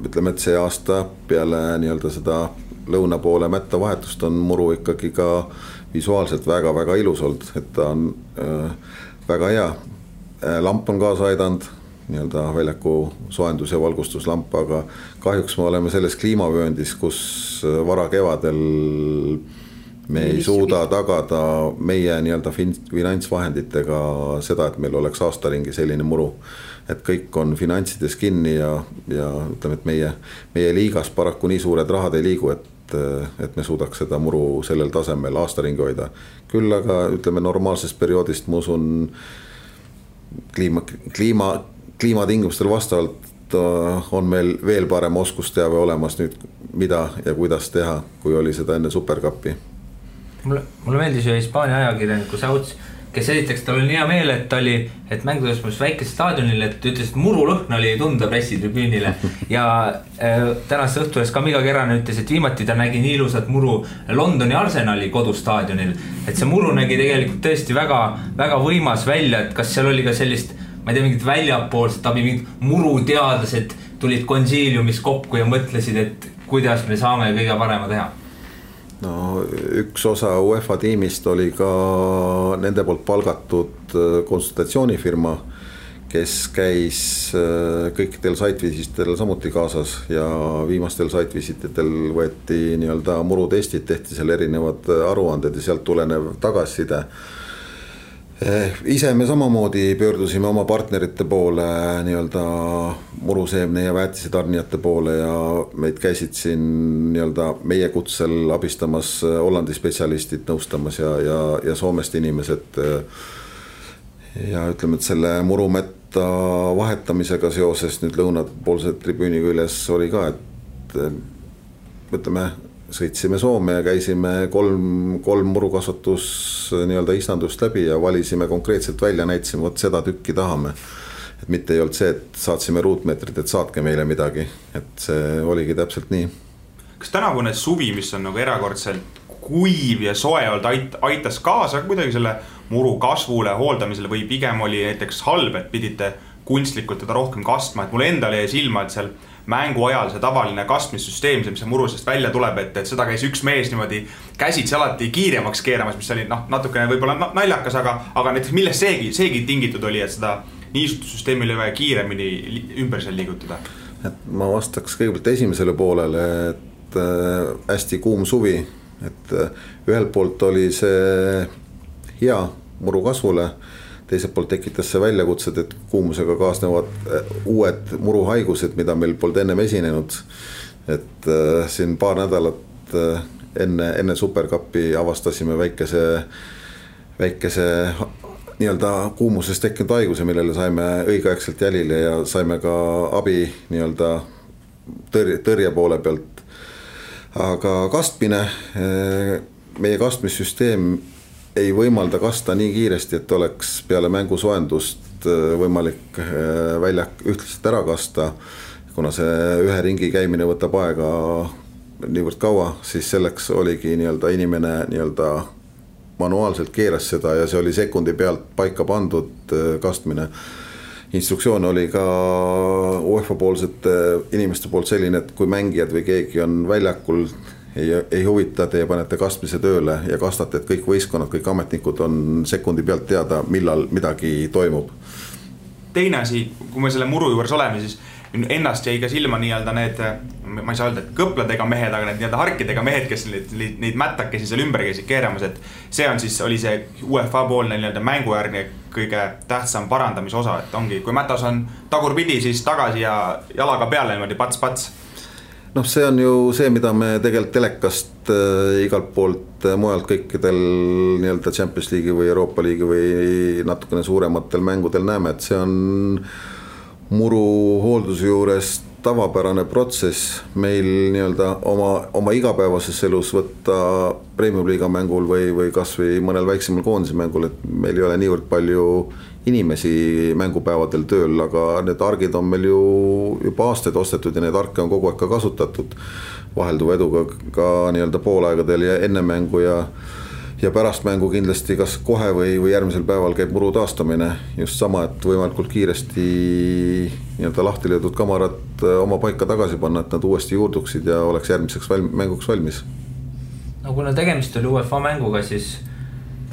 ütleme, et see aasta peale nii-öelda seda lõuna poole mätta vahetust on muru ikkagi ka visuaalselt väga-väga ilus olnud, et ta on väga hea. Lamp on kaasa aidanud, nii-öelda väljaku soendus- ja valgustuslamp, aga kahjuks me oleme selles kliimavööndis, kus vara kevadel me ei suuda tagada meie nii-öelda finantsvahenditega seda, et meil oleks aastaringi selline muru. Et kõik on finantsides kinni ja ütleme, et meie liigas paraku nii suured rahad ei liigu, et me suudaks seda muru sellel tasemel aastaringi hoida. Küll aga ütleme normaalsest perioodist, ma usun, kliimatingimustel vastavalt on meil veel parem oskusteave olemas nüüd, mida ja kuidas teha, kui oli seda enne Supercupi. Mulle meeldis ju Hispaania ajakirjaniku Sauts, kes esiteks tal oli hea meel, et mängudes väikese staadionil, et ütles, et murulõhn oli tunda pressitribüünile ja tänast õhtules ka Miga Kerane ütles, et viimati ta nägi nii ilusat muru Londoni Arsenali kodustaadionil, et see muru nägi tegelikult tõesti väga, väga võimas välja, et kas seal oli ka sellist, ma ei tea, mingid väljapoolsed abi, mingid muruteadlased tulid konsiiliumis kokku ja mõtlesid, et kuidas me saame kõige parema teha. No üks osa UEFA tiimist oli ka nende poolt palgatud konsultatsioonifirma, kes käis kõikidel site-visititel samuti kaasas ja viimastel site-visititel võeti nii-öelda murutestid, tehti seal erinevad aruanded ja sealt tulenev tagasiside. Ise me samamoodi pöördusime oma partnerite poole nii-öelda muruseemne ja väetisetarnijate poole ja meid käisid siin nii-öelda meie kutsel abistamas Hollandi spetsialistid nõustamas ja Soomest inimesed. Ja ütleme, et selle murumetta vahetamisega seoses nüüd lõunapoolse tribüüni küljes oli ka, et ütleme, sõitsime Soome ja käisime kolm murukasvatus nii-öelda istandust läbi ja valisime konkreetselt välja, näitasime, vot seda tükki tahame. Et mitte ei olnud see, et saatsime ruutmeetrit, et saatke meile midagi, et see oligi täpselt nii. Kas tänavune suvi, mis on nagu erakordselt kuiv ja soe olnud, aitas kaasa kuidagi selle muru kasvule, hooldamisele või pigem oli näiteks halb, et pidite kunstlikult teda rohkem kastma, et mulle endale jäi silma, et seal mängu ajal see tavaline kastmissüsteem, mis see murusest välja tuleb, et seda käis üks mees niimoodi käsitsi alati kiiremaks keeramas, mis oli natukene võib-olla naljakas, aga näiteks millest seegi tingitud oli, et seda niisutussüsteemi oli vaja kiiremini ümber seal liigutada? Et ma vastaks kõigepealt esimesele poolele, et hästi kuum suvi, et ühelt poolt oli see hea muru kasvule, teiselt poolt tekitas see väljakutsed, et kuumusega kaasnevad uued muruhaigused, mida meil polnud ennem esinenud. Et siin paar nädalat enne Supercupi avastasime väikese nii-öelda kuumusest tekkinud haiguse, millele saime õigeaegselt jälile ja saime ka abi nii-öelda tõrje poole pealt. Aga kastmine, meie kastmissüsteem ei võimalda kasta nii kiiresti, et oleks peale mängu soendust võimalik väljak ühtlaselt ära kasta. Kuna see ühe ringi käimine võtab aega niivõrd kaua, siis selleks oligi nii-öelda inimene nii-öelda manuaalselt keeras seda ja see oli sekundi pealt paika pandud kastmine. Instruktsioon oli ka UEFA poolsete inimeste poolt selline, et kui mängijad või keegi on väljakul, ei huvita, teie panete kastmise tööle ja kastate, et kõik võistkonnad, kõik ametnikud on sekundi pealt teada, millal midagi toimub. Teine asi, kui me selle muru juures oleme, siis ennast jäi ka silma nii-öelda need, ma ei saa öelda, et kõpladega mehed, aga need nii-öelda harkidega mehed, kes neid mättakesi seal ümber käisid keeramas, et see on siis, oli see UEFA poolne nii-öelda mängujärgne kõige tähtsam parandamise osa, et ongi, kui mätas on tagurpidi, siis tagasi ja jalaga peale niimoodi pats. Noh, see on ju see, mida me tegelikult telekast igalt poolt mujalt kõikidel nii-öelda Champions League'i või Euroopa Liigi või natukene suurematel mängudel näeme, et see on muru hoolduse juures tavapärane protsess meil nii-öelda oma igapäevases elus võtta Premium-liiga mängul või kas või mõnel väiksemal koondise mängul, et meil ei ole niivõrd palju inimesi mängupäevadel tööl, aga need argid on meil ju juba aastaid ostetud ja need arke on kogu aeg ka kasutatud vahelduva eduga ka nii-öelda poolaegadel ja enne mängu ja pärast mängu kindlasti kas kohe või järgmisel päeval käib muru taastamine just sama, et võimalikult kiiresti nii-öelda lahti löödud kamarad oma paika tagasi panna, et nad uuesti juurduksid ja oleks järgmiseks mänguks valmis. No kuna tegemist oli UEFA mänguga, siis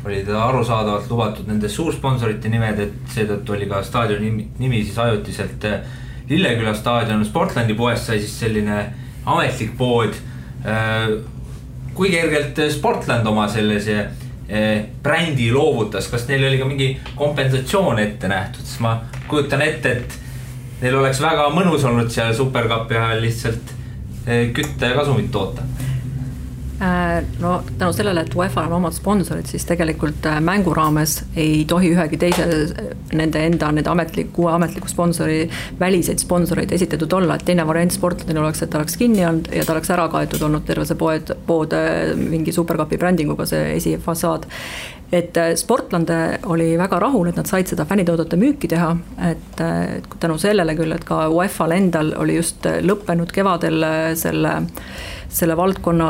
oli ta arusaadavalt lubatud nende suursponsorite nimed, et seetõttu oli ka staadioni nimi siis ajutiselt Lilleküla staadion. Sportlandi poest sai siis selline ametlik pood. Kui kergelt Sportland oma sellise brändi loovutas, kas neil oli ka mingi kompensatsioon ette nähtud, siis ma kujutan ette, et neil oleks väga mõnus olnud seal Supercupi ajal lihtsalt kütta ja kasumit toota. No tänu sellele, et UEFA on omad sponsorid, siis tegelikult mängu raames ei tohi ühegi teise nende uue ametliku sponsori väliseid sponsoreid esitatud olla, et teine variant Sportlandil oleks, et ta oleks kinni olnud ja ta oleks ära kaetud olnud terve see pood mingi Supercupi brändinguga, see esifassaad. Et Sportland oli väga rahul, et nad said seda fännitoodete müüki teha, et tänu sellele küll, et ka UEFA-l endal oli just lõppenud kevadel selle valdkonna,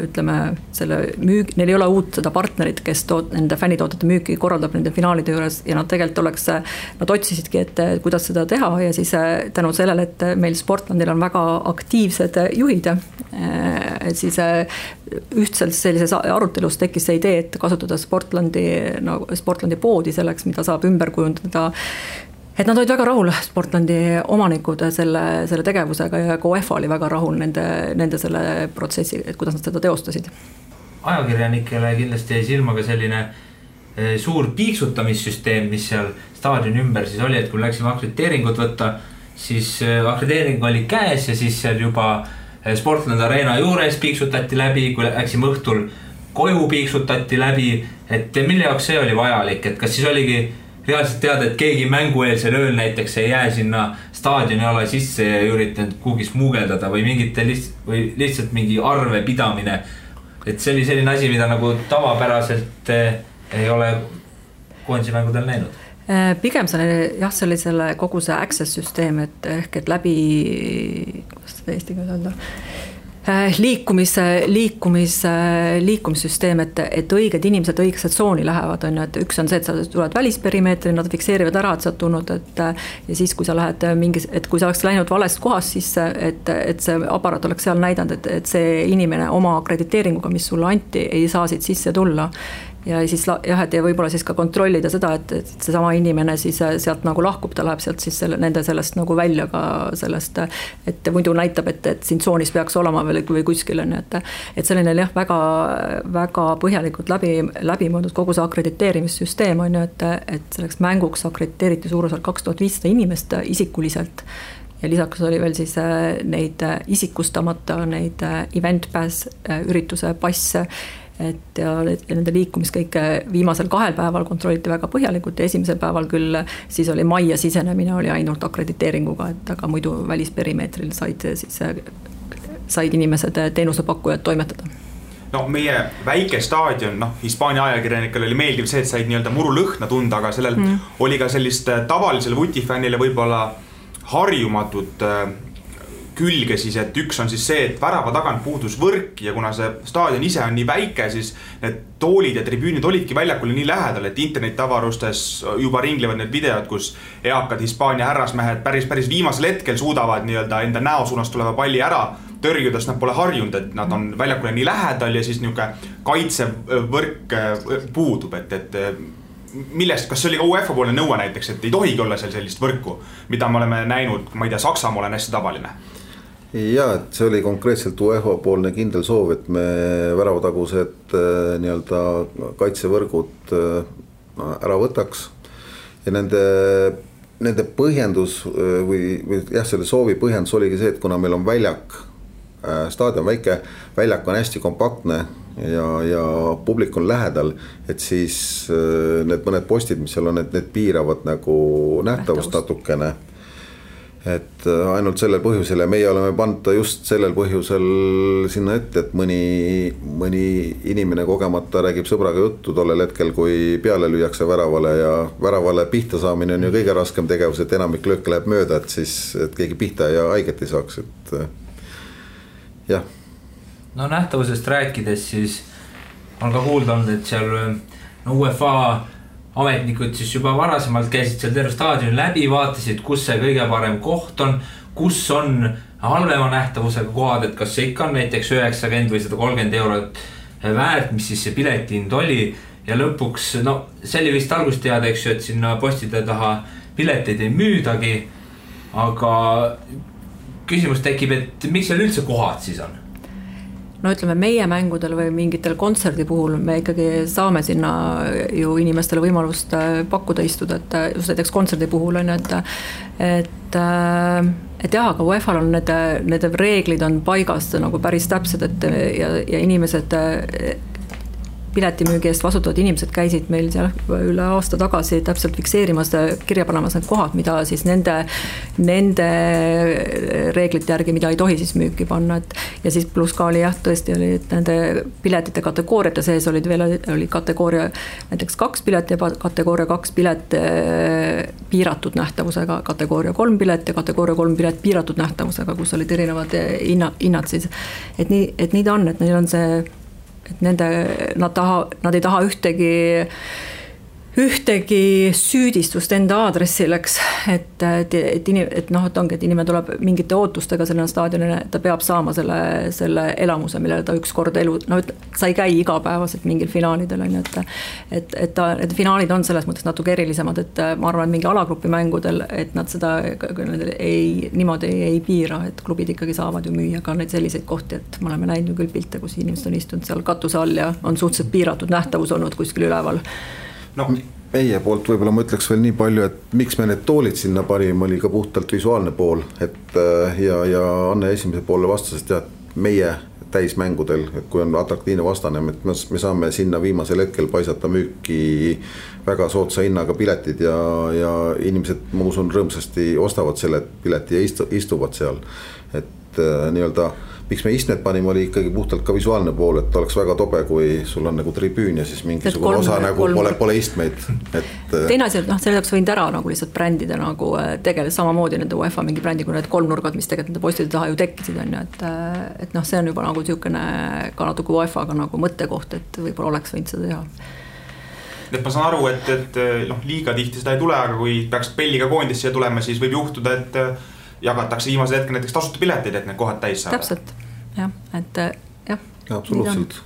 ütleme, neil ei ole uut seda partnerit, kes nende fännitoodete müüki korraldab nende finaalide juures ja nad tegelikult nad otsisidki, et kuidas seda teha ja siis tänu sellele, et meil Sportlandil on väga aktiivsed juhid, et siis ühtselt sellises arutelus tekkis see idee, et kasutada Sportlandi poodi selleks, mida saab ümber kujundada. Et nad olid väga rahul, Sportlandi omanikud selle tegevusega ja ka UEFA oli väga rahul nende selle protsessi, et kuidas nad seda teostasid. Ajakirjanikele kindlasti jäi silma ka selline suur piiksutamissüsteem, mis seal staadioni ümber siis oli, et kui läksime akrediteeringut võtta, siis akrediteering oli käes ja siis seal juba Sportland Arena juures piiksutati läbi, kui läksime õhtul koju piiksutati läbi, et mille jaoks see oli vajalik, et kas siis oligi reaalselt teada, et keegi mängueelsel ööl näiteks ei jää sinna staadioni ala sisse ja üritanud kuhugi smuugeldada või lihtsalt mingi arve pidamine. Et see oli selline asi, mida nagu tavapäraselt ei ole koondise mängudel näinud. Pigem see oli selle kogu see access süsteem, et läbi, kuidas seda eestiga öelda, liikumissüsteem, et õiged inimesed õigesse tsooni lähevad, on ju, et üks on see, et sa tuled välisperimeetri, nad fikseerivad ära, et sa oled tulnud, ja siis kui sa lähed et kui sa oleks läinud valest kohast sisse, et see aparaat oleks seal näidanud, et see inimene oma akrediteeringuga, mis sulle anti, ei saa siit sisse tulla. Ja siis et võib-olla siis ka kontrollida seda, et see sama inimene siis sealt nagu lahkub, ta läheb sealt siis nende sellest nagu välja ka sellest, et muidu näitab, et siin tsoonis peaks olema või kuskil on, et selline väga, väga põhjalikult läbi mõõdud kogu see akrediteerimissüsteem on ju, et selleks mänguks akrediteeriti suurusjärk 2500 inimest isikuliselt ja lisaks oli veel siis neid isikustamata, neid event pass ürituse passe, ja nende liikumist kõike viimasel 2 päeval kontrolliti väga põhjalikult ja esimesel päeval küll siis oli majja sisenemine oli ainult akrediteeringuga, et aga muidu välisperimeetril said inimesed teenusepakkujad toimetada. No meie väike staadion, Hispaania ajakirjanikele oli meeldiv see, et said nii-öelda murulõhna tunda, aga sellel oli ka sellist tavalisele vutifännile võib-olla harjumatut külge siis, et üks on siis see, et värava tagant puudus võrk ja kuna see staadion ise on nii väike, siis need toolid ja tribüünid olidki väljakule nii lähedal, et internetavarustes juba ringlevad need videod, kus eakad Hispaania härrasmehed päris viimasel hetkel suudavad nii-öelda enda näosuunast tuleva palli ära tõrjudes, nad pole harjunud, et nad on väljakule nii lähedal ja siis niisugune kaitsevõrk puudub, et millest, kas see oli ka UEFA poolne nõue näiteks, et ei tohigi olla seal sellist võrku, mida me oleme näinud, ma ei tea, Saksamaa on hästi tavaline? Ja, et see oli konkreetselt UEFA poolne kindel soov, et me väravatagused nii-öelda kaitsevõrgud ära võtaks ja nende põhjendus või jah, selle soovi põhjendus oligi see, et kuna meil on väljak, staadion väike, väljak on hästi kompaktne ja publik on lähedal, et siis need mõned postid, mis seal on, et need piiravad nagu nähtavust natukene. Et ainult sellel põhjusel ja meie oleme pannud just sellel põhjusel sinna ette, et mõni inimene kogemata räägib sõbraga juttu tollel hetkel, kui peale lüüakse väravale ja väravale pihta saamine on ju kõige raskem tegevus, et enamik lööke läheb mööda, et siis et keegi pihta ja haiget ei saaks, et jah. No nähtavusest rääkides siis on ka kuulda olnud, et seal UEFA ametnikud siis juba varasemalt käisid seal terve staadioni läbi, vaatasid, kus see kõige parem koht on, kus on halvema nähtavusega kohad, et kas see ikka on näiteks 90 või 130 eurot väärt, mis siis see piletihind oli ja lõpuks, see oli vist algust teada, eks ju, et sinna postide taha pileteid ei müüdagi, aga küsimus tekib, et miks seal üldse kohad siis on? No ütleme, meie mängudel või mingitel kontserdi puhul me ikkagi saame sinna ju inimestele võimalust pakkuda istuda, et just näiteks kontserdi puhul on, et jah, aga UEFA-l on need reeglid on paigas nagu päris täpsed, et ja inimesed piletimüügi eest vastutavad inimesed käisid meil seal üle aasta tagasi täpselt fikseerimas kirja panemas need kohad, mida siis nende reeglite järgi, mida ei tohi siis müüki panna, et ja siis pluss ka oli jah, tõesti oli, et nende piletite kategooriate sees oli kategooria näiteks 2 pilet ja kategooria 2 pilet piiratud nähtavusega, kategooria 3 pilet ja kategooria 3 pilet piiratud nähtavusega, kus olid erinevad hinnad siis, et nii ta on, et neil on see et nad ei taha ühtegi süüdistust enda aadressil, eks, et ongi, et inimene tuleb mingite ootustega selle staadionile, et ta peab saama selle elamuse, millele ta ükskord sa ei käi igapäevaselt mingil finaalidel, on, et finaalid on selles mõttes natuke erilisemad, et ma arvan, et mingi alagrupi mängudel, et nad seda niimoodi ei piira, et klubid ikkagi saavad ju müüa ka neid selliseid kohti, et me oleme näinud ju küll pilte, kus inimesed on istunud seal katuse all ja on suhteliselt piiratud nähtavus olnud kuskil üleval. No, meie poolt võib-olla ma ütleks veel nii palju, et miks me need toolid sinna parim oli ka puhtalt visuaalne pool, et ja Anne esimese poole vastas, et meie täismängudel, et kui on atraktiivne vastane, et me saame sinna viimasel hetkel paisata müüki väga soodsa hinnaga piletid ja inimesed, ma usun, rõõmsasti ostavad selle pileti ja istuvad seal, et nii-öelda miks me istmed panime, oli ikkagi puhtalt ka visuaalne pool, et oleks väga tobe, kui sul on nagu tribüün ja siis mingisugune osa nagu pole istmeid. Teine asi, selle jaoks võinud ära nagu lihtsalt brändida nagu tegeles samamoodi nende UEFA mingi brändi, kui need 3 nurgad, mis tegelikult nende postide taha ju tekkisid, on ju, et see on juba nagu niisugune ka natuke UEFA-ga nagu mõttekoht, et võib-olla oleks võinud seda teha. Et ma saan aru, et liiga tihti seda ei tule, aga kui peaks Belliga koondisse ja tulema, siis võib juhtuda, et jagatakse viimase hetkel näiteks tasuta piletid, et need kohad täis saada. Täpselt, jah, et jah. Absoluutselt.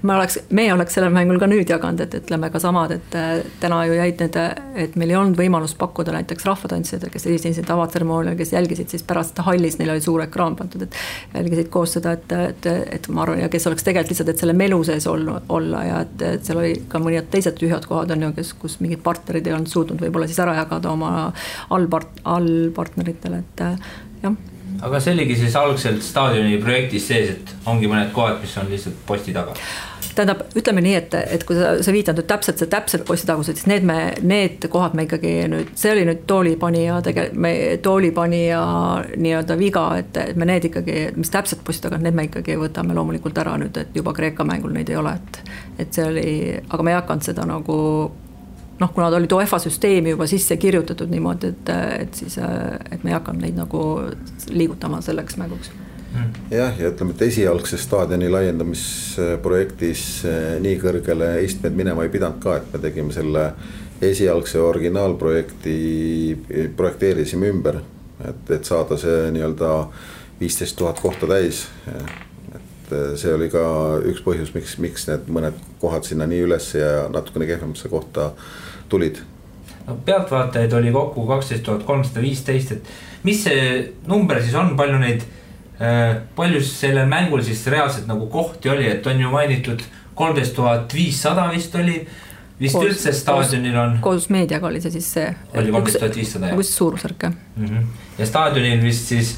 Meie oleks sellel mängul ka nüüd jaganud, et ütleme ka samad, et täna ju jäid need, et meil ei olnud võimalust pakkuda näiteks rahvatantsijad, kes esinesid avatseremoonial, kes jälgisid siis pärast hallis, neil oli suur ekraan pandud, et jälgisid koos seda, et ma arvan, ja kes oleks tegelikult lihtsalt, et selle melu sees olla ja et seal oli ka mõned teised tühjad kohad on ju, kus mingid partnerid ei olnud suutnud võib-olla siis ära jagada oma allpartneritele, et jah. aga see oligi siis algselt staadioni projektis sees, et ongi mõned kohad, mis on lihtsalt posti taga. Tähendab, ütleme nii, et kui sa viitad nüüd täpselt posti tagused, siis need kohad me ikkagi nüüd, see oli nüüd toolipanija nii-öelda viga, et me need ikkagi, mis täpselt posti taga, need me ikkagi võtame loomulikult ära nüüd, et juba Kreeka mängul neid ei ole, et see oli, aga me ei hakanud seda nagu kuna ta oli UEFA süsteemi juba sisse kirjutatud niimoodi, et me ei hakanud neid nagu liigutama selleks mänguks. Jah, ja ütleme, et esialgse staadioni laiendamisprojektis nii kõrgele istmed minema ei pidanud ka, et me tegime selle esialgse originaalprojekti, projekteerisime ümber, et saada see nii-öelda 15 000 kohta täis. Et see oli ka üks põhjus, miks need mõned kohad sinna nii üles ja natukene kehvemasse kohta tulid. No, pealtvaatajaid oli kokku 12 315, et mis see number siis on, palju sellel mängul siis reaalselt nagu kohti oli, et on ju mainitud 13 500 vist oli, vist üldse staadionil on. Koos meediaga oli see siis see. Oli 13 500, jah. Kus suurusärk, jah. Ja staadionil vist siis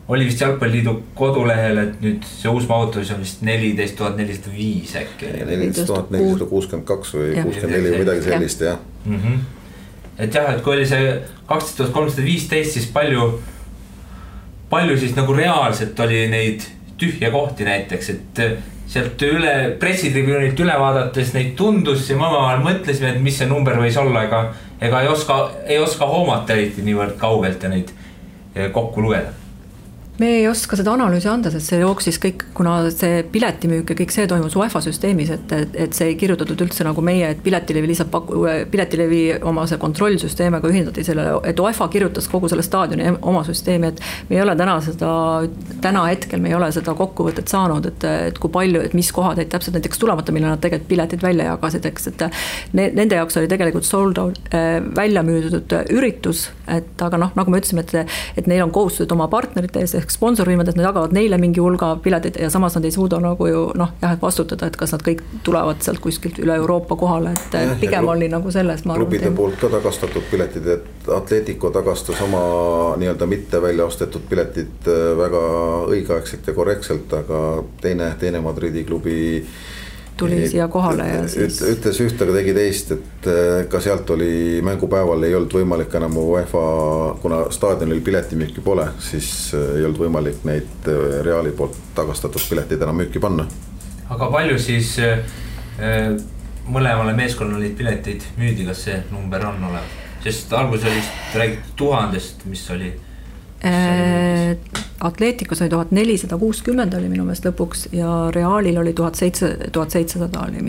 oli vist Jalgpalliliidu kodulehel, et nüüd see uus mahutus on vist 14 405 äkki. 14 462 või 64 või midagi sellist, jah. Et jah, et kui oli see 12 315, siis palju siis nagu reaalselt oli neid tühja kohti näiteks, et sealt pressitribüünit üle vaadates neid tundus ja ma mõtlesime, et mis see number võis olla, ega ei oska hoomata eriti niivõrd kaugelt ja neid kokku lugeda. Me ei oska seda analüüsi anda, sest see jooksis kõik, kuna see piletimüük ja kõik see toimus UEFA süsteemis, et see ei kirjutatud üldse nagu meie, et Piletilevi oma see kontrollsüsteemiga ühindati selle, et UEFA kirjutas kogu selle staadioni oma süsteemi, et me ei ole täna hetkel me ei ole seda kokkuvõtet saanud, et kui palju, et mis kohad, et täpselt näiteks tulemata, mille nad tegelikult piletid välja jagasid, eks, et nende jaoks oli tegelikult sold out välja müüdud üritus, et aga nagu me ütlesime, et neil on kohustused oma partnerite ees, sponsorvõimad, et nad jagavad neile mingi hulga piletid ja samas nad ei suuda nagu ju vastutada, et kas nad kõik tulevad sealt kuskilt üle Euroopa kohale, et pigem oli nagu selles. Klubide poolt ka tagastatud piletid, et Atletico tagastas oma nii-öelda mitte välja ostetud piletid väga õigeaegselt ja korrektselt, aga teine Madridi klubi tuli siia kohale ja siis ütles ühte, aga tegi teist, et ka sealt oli mängupäeval ei olnud võimalik enam UEFA, kuna staadionil piletimüüki pole, siis ei olnud võimalik neid Reali poolt tagastatud piletid enam müüki panna. Aga palju siis mõlemale meeskonnale pileteid müüdi, kas see number on olev? Sest algus oli räägitud 1000, mis oli Atleticos oli 1460 oli minu meelest lõpuks ja Realil oli 1700 oli,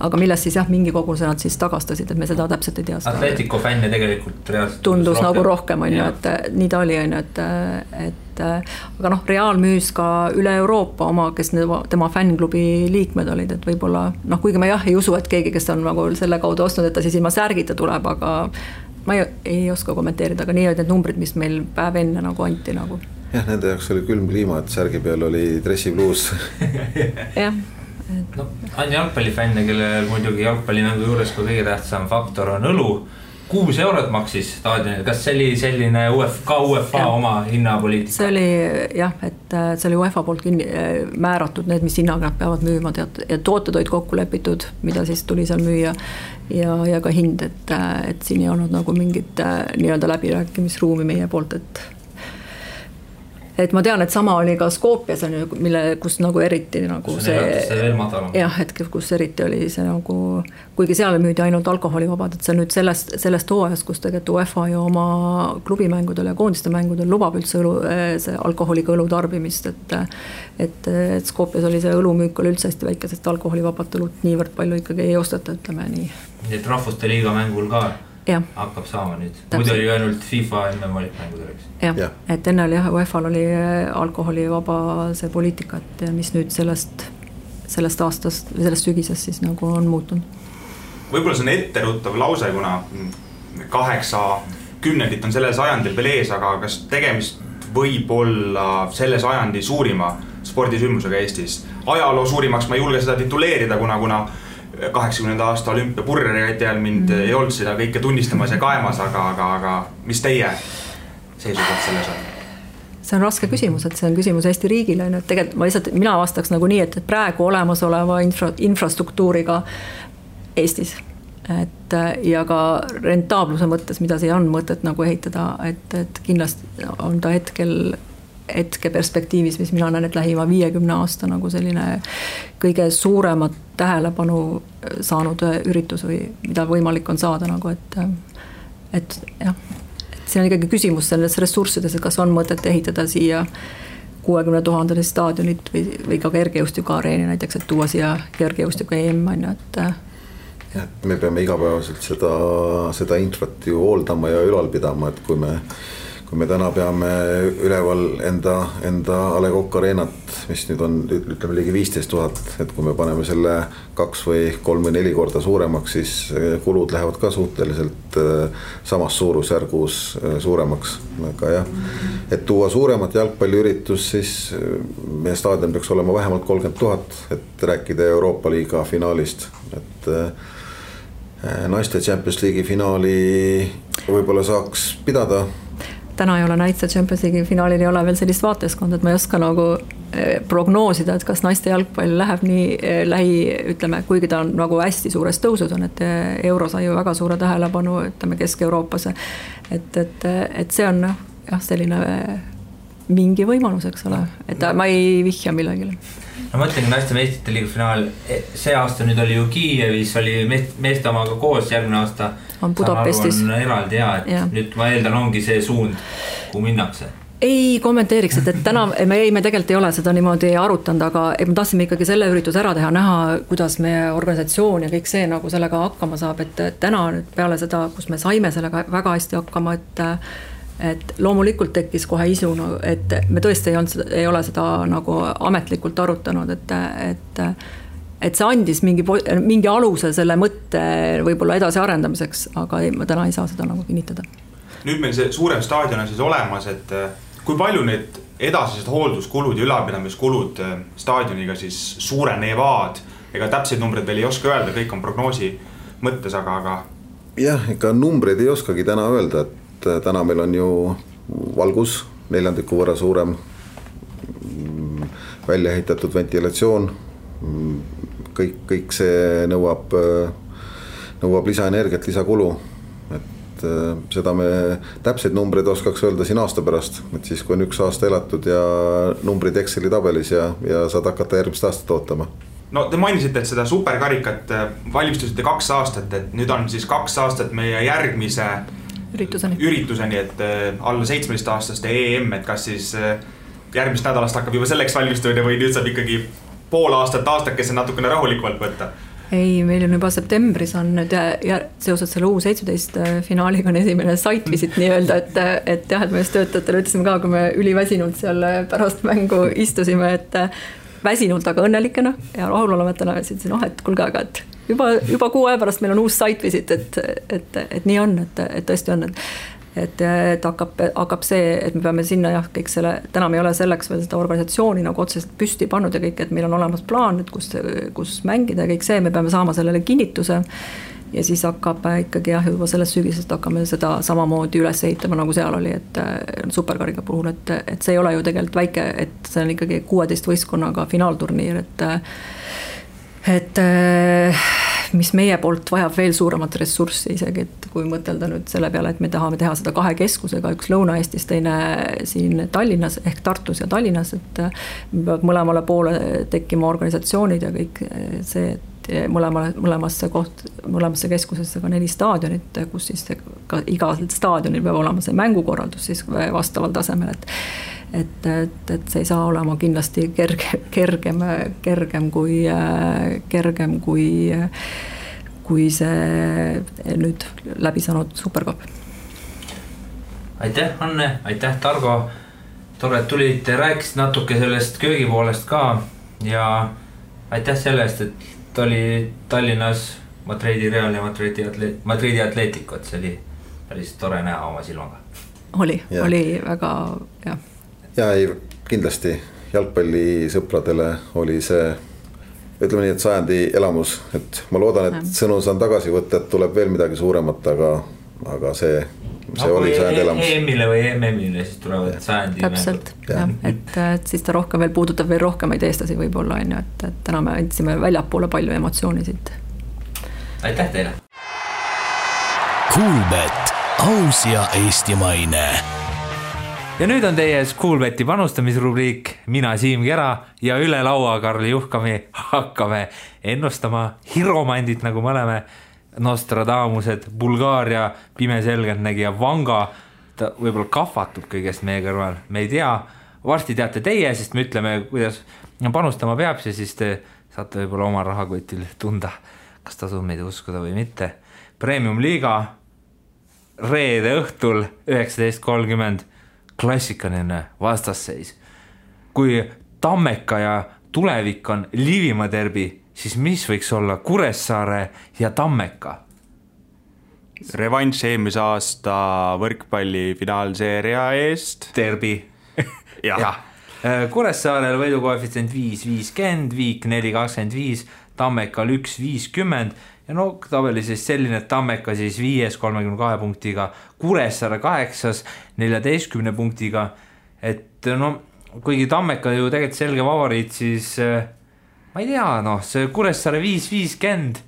aga millest siis mingi koguse nad siis tagastasid, et me seda täpselt ei tea. Atletico fänne tegelikult reaalselt tundus nagu rohkem on ju, et nii ta oli on ju, et aga Real müüs ka üle Euroopa oma, kes tema fännklubi liikmed olid, et võib-olla kuigi ma ei usu, et keegi, kes on nagu selle kaudu ostnud, et ta siis ilma särgita tuleb, aga ma ei oska kommenteerida, aga nii olid need numbrid, mis meil päev enne nagu anti nagu. Jah, nende jaoks oli külm kliima, et särgi peal oli dressibluus. Jah. On jalgpallifänne, kelle muidugi jalgpallimängu juures kui kõige tähtsam faktor on õlu. 6 eurot maksis staadionil, kas see oli selline UEFA oma hinnapoliitika? See oli et see oli UEFA poolt määratud need, mis hinnaga nad peavad müüma ja tooted olid kokku lepitud, mida siis tuli seal müüa ja ka hind, et siin ei olnud nagu mingit nii-öelda läbirääkimisruumi meie poolt, et ma tean, et sama oli ka Skopjas, kus nagu eriti nagu et kus eriti oli see nagu, kuigi seal müüdi ainult alkoholivabad, et see nüüd sellest hooajast, kus tegelikult UEFA ja oma klubimängudel ja koondiste mängudel lubab üldse see alkoholiga õlu tarbimist, et Skopjas oli see õlumüük oli üldse hästi väike, sest alkoholivabad õlut niivõrd palju ikkagi ei osteta, ütleme nii. Nii et rahvuste liiga mängul ka hakkab saama nüüd. Muidu oli ainult FIFA enne valikmängudeks. Jah, et enne oli UEFA-l oli alkoholivaba see poliitika, et mis nüüd sellest aastast või sellest sügisest siis nagu on muutunud. Võib-olla see on etteruttav lause, kuna 80 on sellel sajandil veel ees, aga kas tegemist võib olla selle sajandi suurima spordisündmusega Eestis? Ajaloo suurimaks ma ei julge seda tituleerida, kuna 80. aasta olümpia purreri ajal mind ei olnud seda kõike tunnistamas ja kaemas, aga mis teie seisukoht selles on? see on raske küsimus, et see on küsimus Eesti riigile, et tegelikult mina vastaks nagu nii, et praegu olemasoleva infrastruktuuriga Eestis, et ja ka rentaabluse mõttes, mida siia on mõtet nagu ehitada, et kindlasti on ta hetke perspektiivis, mis mina näen, et lähima 50 aasta nagu selline kõige suuremat tähelepanu saanud üritus või mida võimalik on saada nagu, et jah, see on ikkagi küsimus selles ressurssides, et kas on mõtet ehitada siia 60 000 staadionit või ka kergejõustiku areeni näiteks, et tuua siia kergejõustiku EM, et me peame igapäevaselt seda infrat ju hooldama ja ülal pidama, et kui me täna peame üleval enda A. Le Coq Arenat, mis nüüd on, ütleme, ligi 15 000, et kui me paneme selle 2 või 3 või 4 korda suuremaks, siis kulud lähevad ka suhteliselt samas suurusjärgus suuremaks. Aga jah, et tuua suuremat jalgpalliüritus, siis meie staadion peaks olema vähemalt 30 000, et rääkida Euroopa Liiga finaalist, et naiste Champions League'i finaali võib-olla saaks pidada. Täna ei ole naiste Champions League'i finaalil ei ole veel sellist vaateskonda, et ma ei oska nagu prognoosida, et kas naiste jalgpall läheb nii ütleme, kuigi ta on nagu hästi suures tõusud on, et euro sai ju väga suure tähelepanu, ütleme Kesk-Euroopas, et see on jah, selline mingi võimalus, eks ole, et ma ei vihja millegile. No ma mõtlengi naiste meistrite liiga finaal, see aasta nüüd oli ju Kiievis, oli meeste omaga koos, järgmine aasta on Budapestis. On eraldi et nüüd ma eeldan ongi see suund, kuhu minnakse. Ei kommenteeriks, et täna me tegelikult ei ole seda niimoodi arutanud, aga me tahtsime ikkagi selle üritus ära teha, näha, kuidas meie organisatsioon ja kõik see nagu sellega hakkama saab, et täna nüüd peale seda, kus me saime sellega väga hästi hakkama, et loomulikult tekkis kohe isu, et me tõesti ei ole seda nagu ametlikult arutanud, et see andis mingi aluse selle mõtte võib-olla edasi arendamiseks, aga ma täna ei saa seda nagu kinnitada. Nüüd meil see suurem staadion on siis olemas, et kui palju need edasised hoolduskulud ja ülalpidamiskulud staadioniga siis suurenevad, ega täpseid numbreid veel ei oska öelda, kõik on prognoosi mõttes, aga... Jah, ega numbreid ei oskagi täna öelda, et täna meil on ju valgus 4 võrra suurem, välja ehitatud ventilatsioon, kõik see nõuab lisaenergiat, lisakulu, et seda me täpseid numbreid oskaks öelda siin aasta pärast, et siis kui on 1 aasta elatud ja numbrid Exceli tabelis ja saad hakata järgmist aastat ootama. No te mainisite, et seda superkarikat valmistusite 2 aastat, et nüüd on siis 2 aastat meie järgmise ürituseni, et alla 17-aastaste EM, et kas siis järgmist nädalast hakkab juba selleks valmistumine või nüüd saab ikkagi pool aastakese natukene rahulikumalt võtta? Ei, meil on juba septembris on nüüd ja seoses selle U17 finaaliga on esimene site visit nii-öelda, et jah, et me just töötajatele ütlesime ka, kui me üliväsinult seal pärast mängu istusime, et väsinult, aga õnnelikena ja rahulolematena ütlesin, et kuulge, aga et juba 6 aja pärast meil on uus site visit, et nii on, et tõesti on, et hakkab see, et me peame sinna kõik selle, täna me ei ole selleks veel seda organisatsiooni nagu otseselt püsti pannud ja kõik, et meil on olemas plaan, et kus mängida ja kõik see, me peame saama sellele kinnituse ja siis hakkab ikkagi juba sellest sügisest hakkame seda samamoodi üles ehitama, nagu seal oli, et superkariga puhul, et see ei ole ju tegelikult väike, et see on ikkagi 16 võistkonnaga finaalturniir, et mis meie poolt vajab veel suuremat ressurssi isegi, et kui mõtelda nüüd selle peale, et me tahame teha seda 2 keskusega, üks Lõuna-Eestis, teine siin Tallinnas ehk Tartus ja Tallinnas, et peab mõlemale poole tekkima organisatsioonid ja kõik see, et mõlemasse keskusesse ka 4 staadionit, kus siis ka igal staadionil peab olema see mängukorraldus siis vastaval tasemel, et see ei saa olema kindlasti kergem kui see nüüd läbi saanud superkopp. Aitäh, Anne, aitäh, Targo. Tore, et tulid, rääkisid natuke sellest köögipoolest ka ja aitäh sellest, et oli Tallinnas Madridi Real ja Madridi Atletico, et see oli päris tore näha oma silmaga. Oli väga, jah. Ja ei, kindlasti jalgpallisõpradele oli see, ütleme nii, et sajandi elamus, et ma loodan, et sõnu saan tagasi võtta, et tuleb veel midagi suuremat, aga see see oli sajandi elamus. EM-ile või MM-ile siis tulevad sajandi täpselt, jah, et siis ta rohkem veel puudutab veel rohkemaid eestlasi võib-olla, on ju, et täna me andsime väljapoole palju emotsiooni siit. Aitäh teile! Kuulbet, aus ja eestimaine. Ja nüüd on teie Kuulbeti panustamisrubriik, mina Siim Kera ja üle laua Karli Juhkami hakkame ennustama hiromandit, nagu me oleme Nostradamused, Bulgaaria pimeselgeltnägija Vanga, ta võib-olla kahvatub kõigest meie kõrval, me ei tea, varsti teate teie, sest me ütleme, kuidas panustama peab, siis te saate võib-olla oma rahakotil tunda, kas tasub meid uskuda või mitte. Premium liiga reede õhtul 19.30 klassikaline vastasseis. Kui Tammeka ja tulevik on Liivimaa derbi, siis mis võiks olla Kuressaare ja Tammeka? Revanš eelmise aasta võrkpalli finaalseeria eest. Derbi. ja. Kuressaarel võidukoefitsient 5.50, Viik 4.25, Tammekal 1.50 ja no tabeli siis selline, et Tammeka siis 5. 32 punktiga, Kuressaare 8. 14 punktiga, et no kuigi Tammeka ju tegelikult selge favoriit, siis ma ei tea, noh, see Kuressaare 5.50,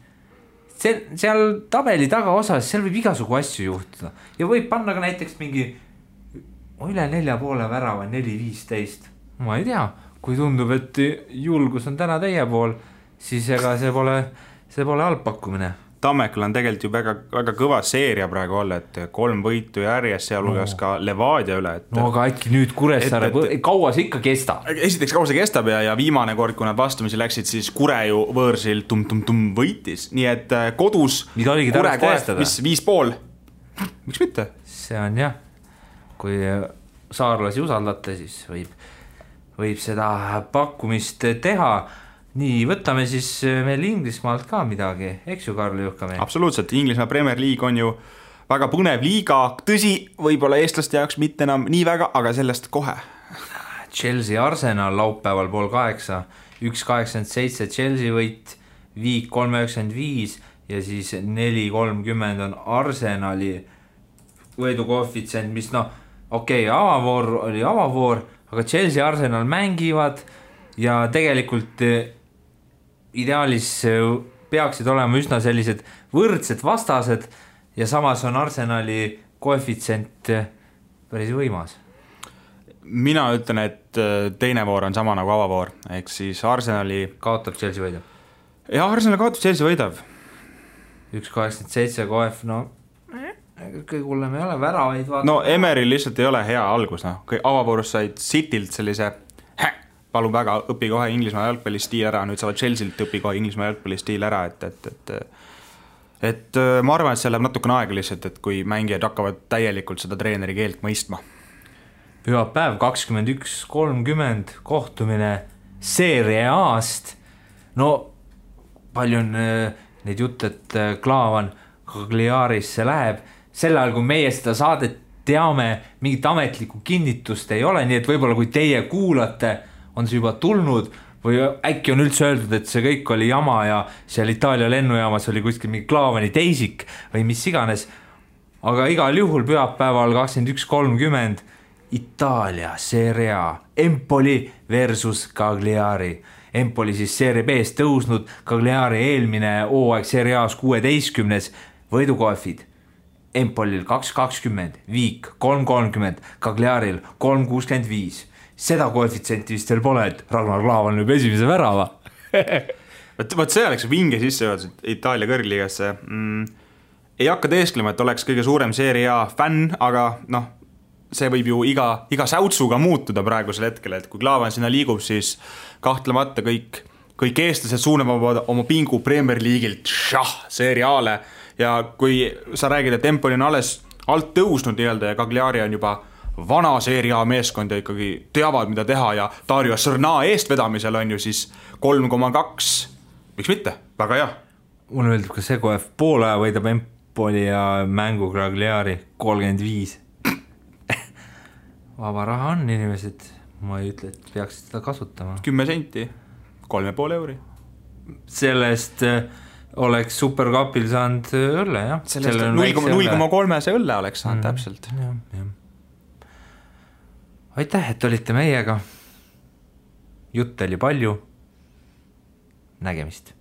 seal tabeli tagaosas, seal võib igasugu asju juhtuda ja võib panna ka näiteks mingi üle 4,5 värava 4.15, ma ei tea, kui tundub, et julgus on täna teie pool, siis ega see pole halb pakkumine. Tammekal on tegelikult ju väga kõva seeria praegu olla, et 3 võitu järjest, sealhulgas ka Levadia üle. No aga äkki nüüd Kuressaare, kaua see ikka kestab? Esiteks kaua see kestab ja viimane kord, kui nad vastumisi läksid, siis Kure ju võõrsil võitis. Nii et kodus mida oligi Kure koestada? Mis 5,5? Miks mitte? See on jah, kui saarlasi usaldate, siis võib seda pakkumist teha. Nii, võtame siis meil Inglismaalt ka midagi, eks ju, Karli Juhkami? Absoluutselt, Inglismaa Premier League on ju väga põnev liiga, tõsi, võib-olla eestlaste jaoks mitte enam nii väga, aga sellest kohe. Chelsea Arsenal laupäeval 7:30, 1.87 Chelsea võit, Viik 3.95 ja siis 4.30 on Arsenali võidukoefitsient, mis avavoor oli avavoor, aga Chelsea Arsenal mängivad ja tegelikult ideaalis peaksid olema üsna sellised võrdsed vastased ja samas on Arsenali koefitsient päris võimas. Mina ütlen, et teine voor on sama nagu avavoor, ehk siis Arsenali kaotab Chelsea võidab. Ja Arsenal kaotab Chelsea võidab. 1.87 koef, kõige hullem ei ole, väravaid vaata. No Emeril lihtsalt ei ole hea algus, avavoorus said Citylt sellise palun väga, õpi kohe Inglismaa jalgpallistiil ära, nüüd saavad Chelsealt õpi kohe Inglismaa jalgpallistiil ära, et ma arvan, et see läheb natukene aega lihtsalt, et kui mängijad hakkavad täielikult seda treeneri keelt mõistma. Pühapäev 21.30 kohtumine Serie A-st, no palju on neid jutt, et Klaavan Cagliarisse läheb, sel ajal kui meie seda saadet teame, mingit ametlikku kinnitust ei ole, nii et võib-olla kui teie kuulate, on see juba tulnud või äkki on üldse öeldud, et see kõik oli jama ja seal Itaalia lennujaamas oli kuskil mingi Klaavani teisik või mis iganes. Aga igal juhul pühapäeval 21.30 Itaalia Serie A, Empoli versus Cagliari. Empoli siis Serie B-s tõusnud, Cagliari eelmine hooaeg Serie A-s 16. võidukoefid. Empolil 2.20, Viik 3.30, Cagliaril 3.65. Seda koefitsenti vist veel pole, et Ragnar Klavan lööb esimese värava. Võt see oleks vinge sisse juhtud Itaalia kõrgliigasse. Ei hakka teesklema, et oleks kõige suurem Serie A fänn, aga see võib ju iga säutsuga muutuda praegusel hetkel, et kui Klavan sinna liigub, siis kahtlemata kõik eestlased suunavad oma pingu Premier League'ilt Serie A-le ja kui sa räägid, et Empoli on alles alt tõusnud nii-öelda ja Cagliari on juba vana Serie A meeskond ja ikkagi teavad, mida teha ja Dario Srna eestvedamisel on ju siis 3,2. Miks mitte? Väga hea. Mulle meeldib ka see koef, poole aja võidab Empoli ja mängu Cagliari 35. Vaba raha on inimesed, ma ei ütle, et peaksid seda kasutama. 10 senti, 3,5 euri. Sellest oleks Supercupil saanud õlle, jah. 0,3 see õlle oleks saanud täpselt. Aitäh, et olite meiega. Jutt oli palju. Nägemist.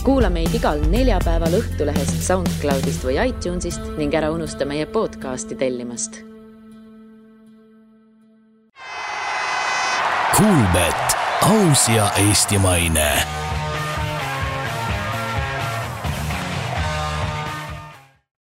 Kuula meid igal neljapäeval Õhtulehest, SoundCloudist või iTunesist ning ära unusta meie podcasti tellimast. Kuulbet, aus ja eestimaine.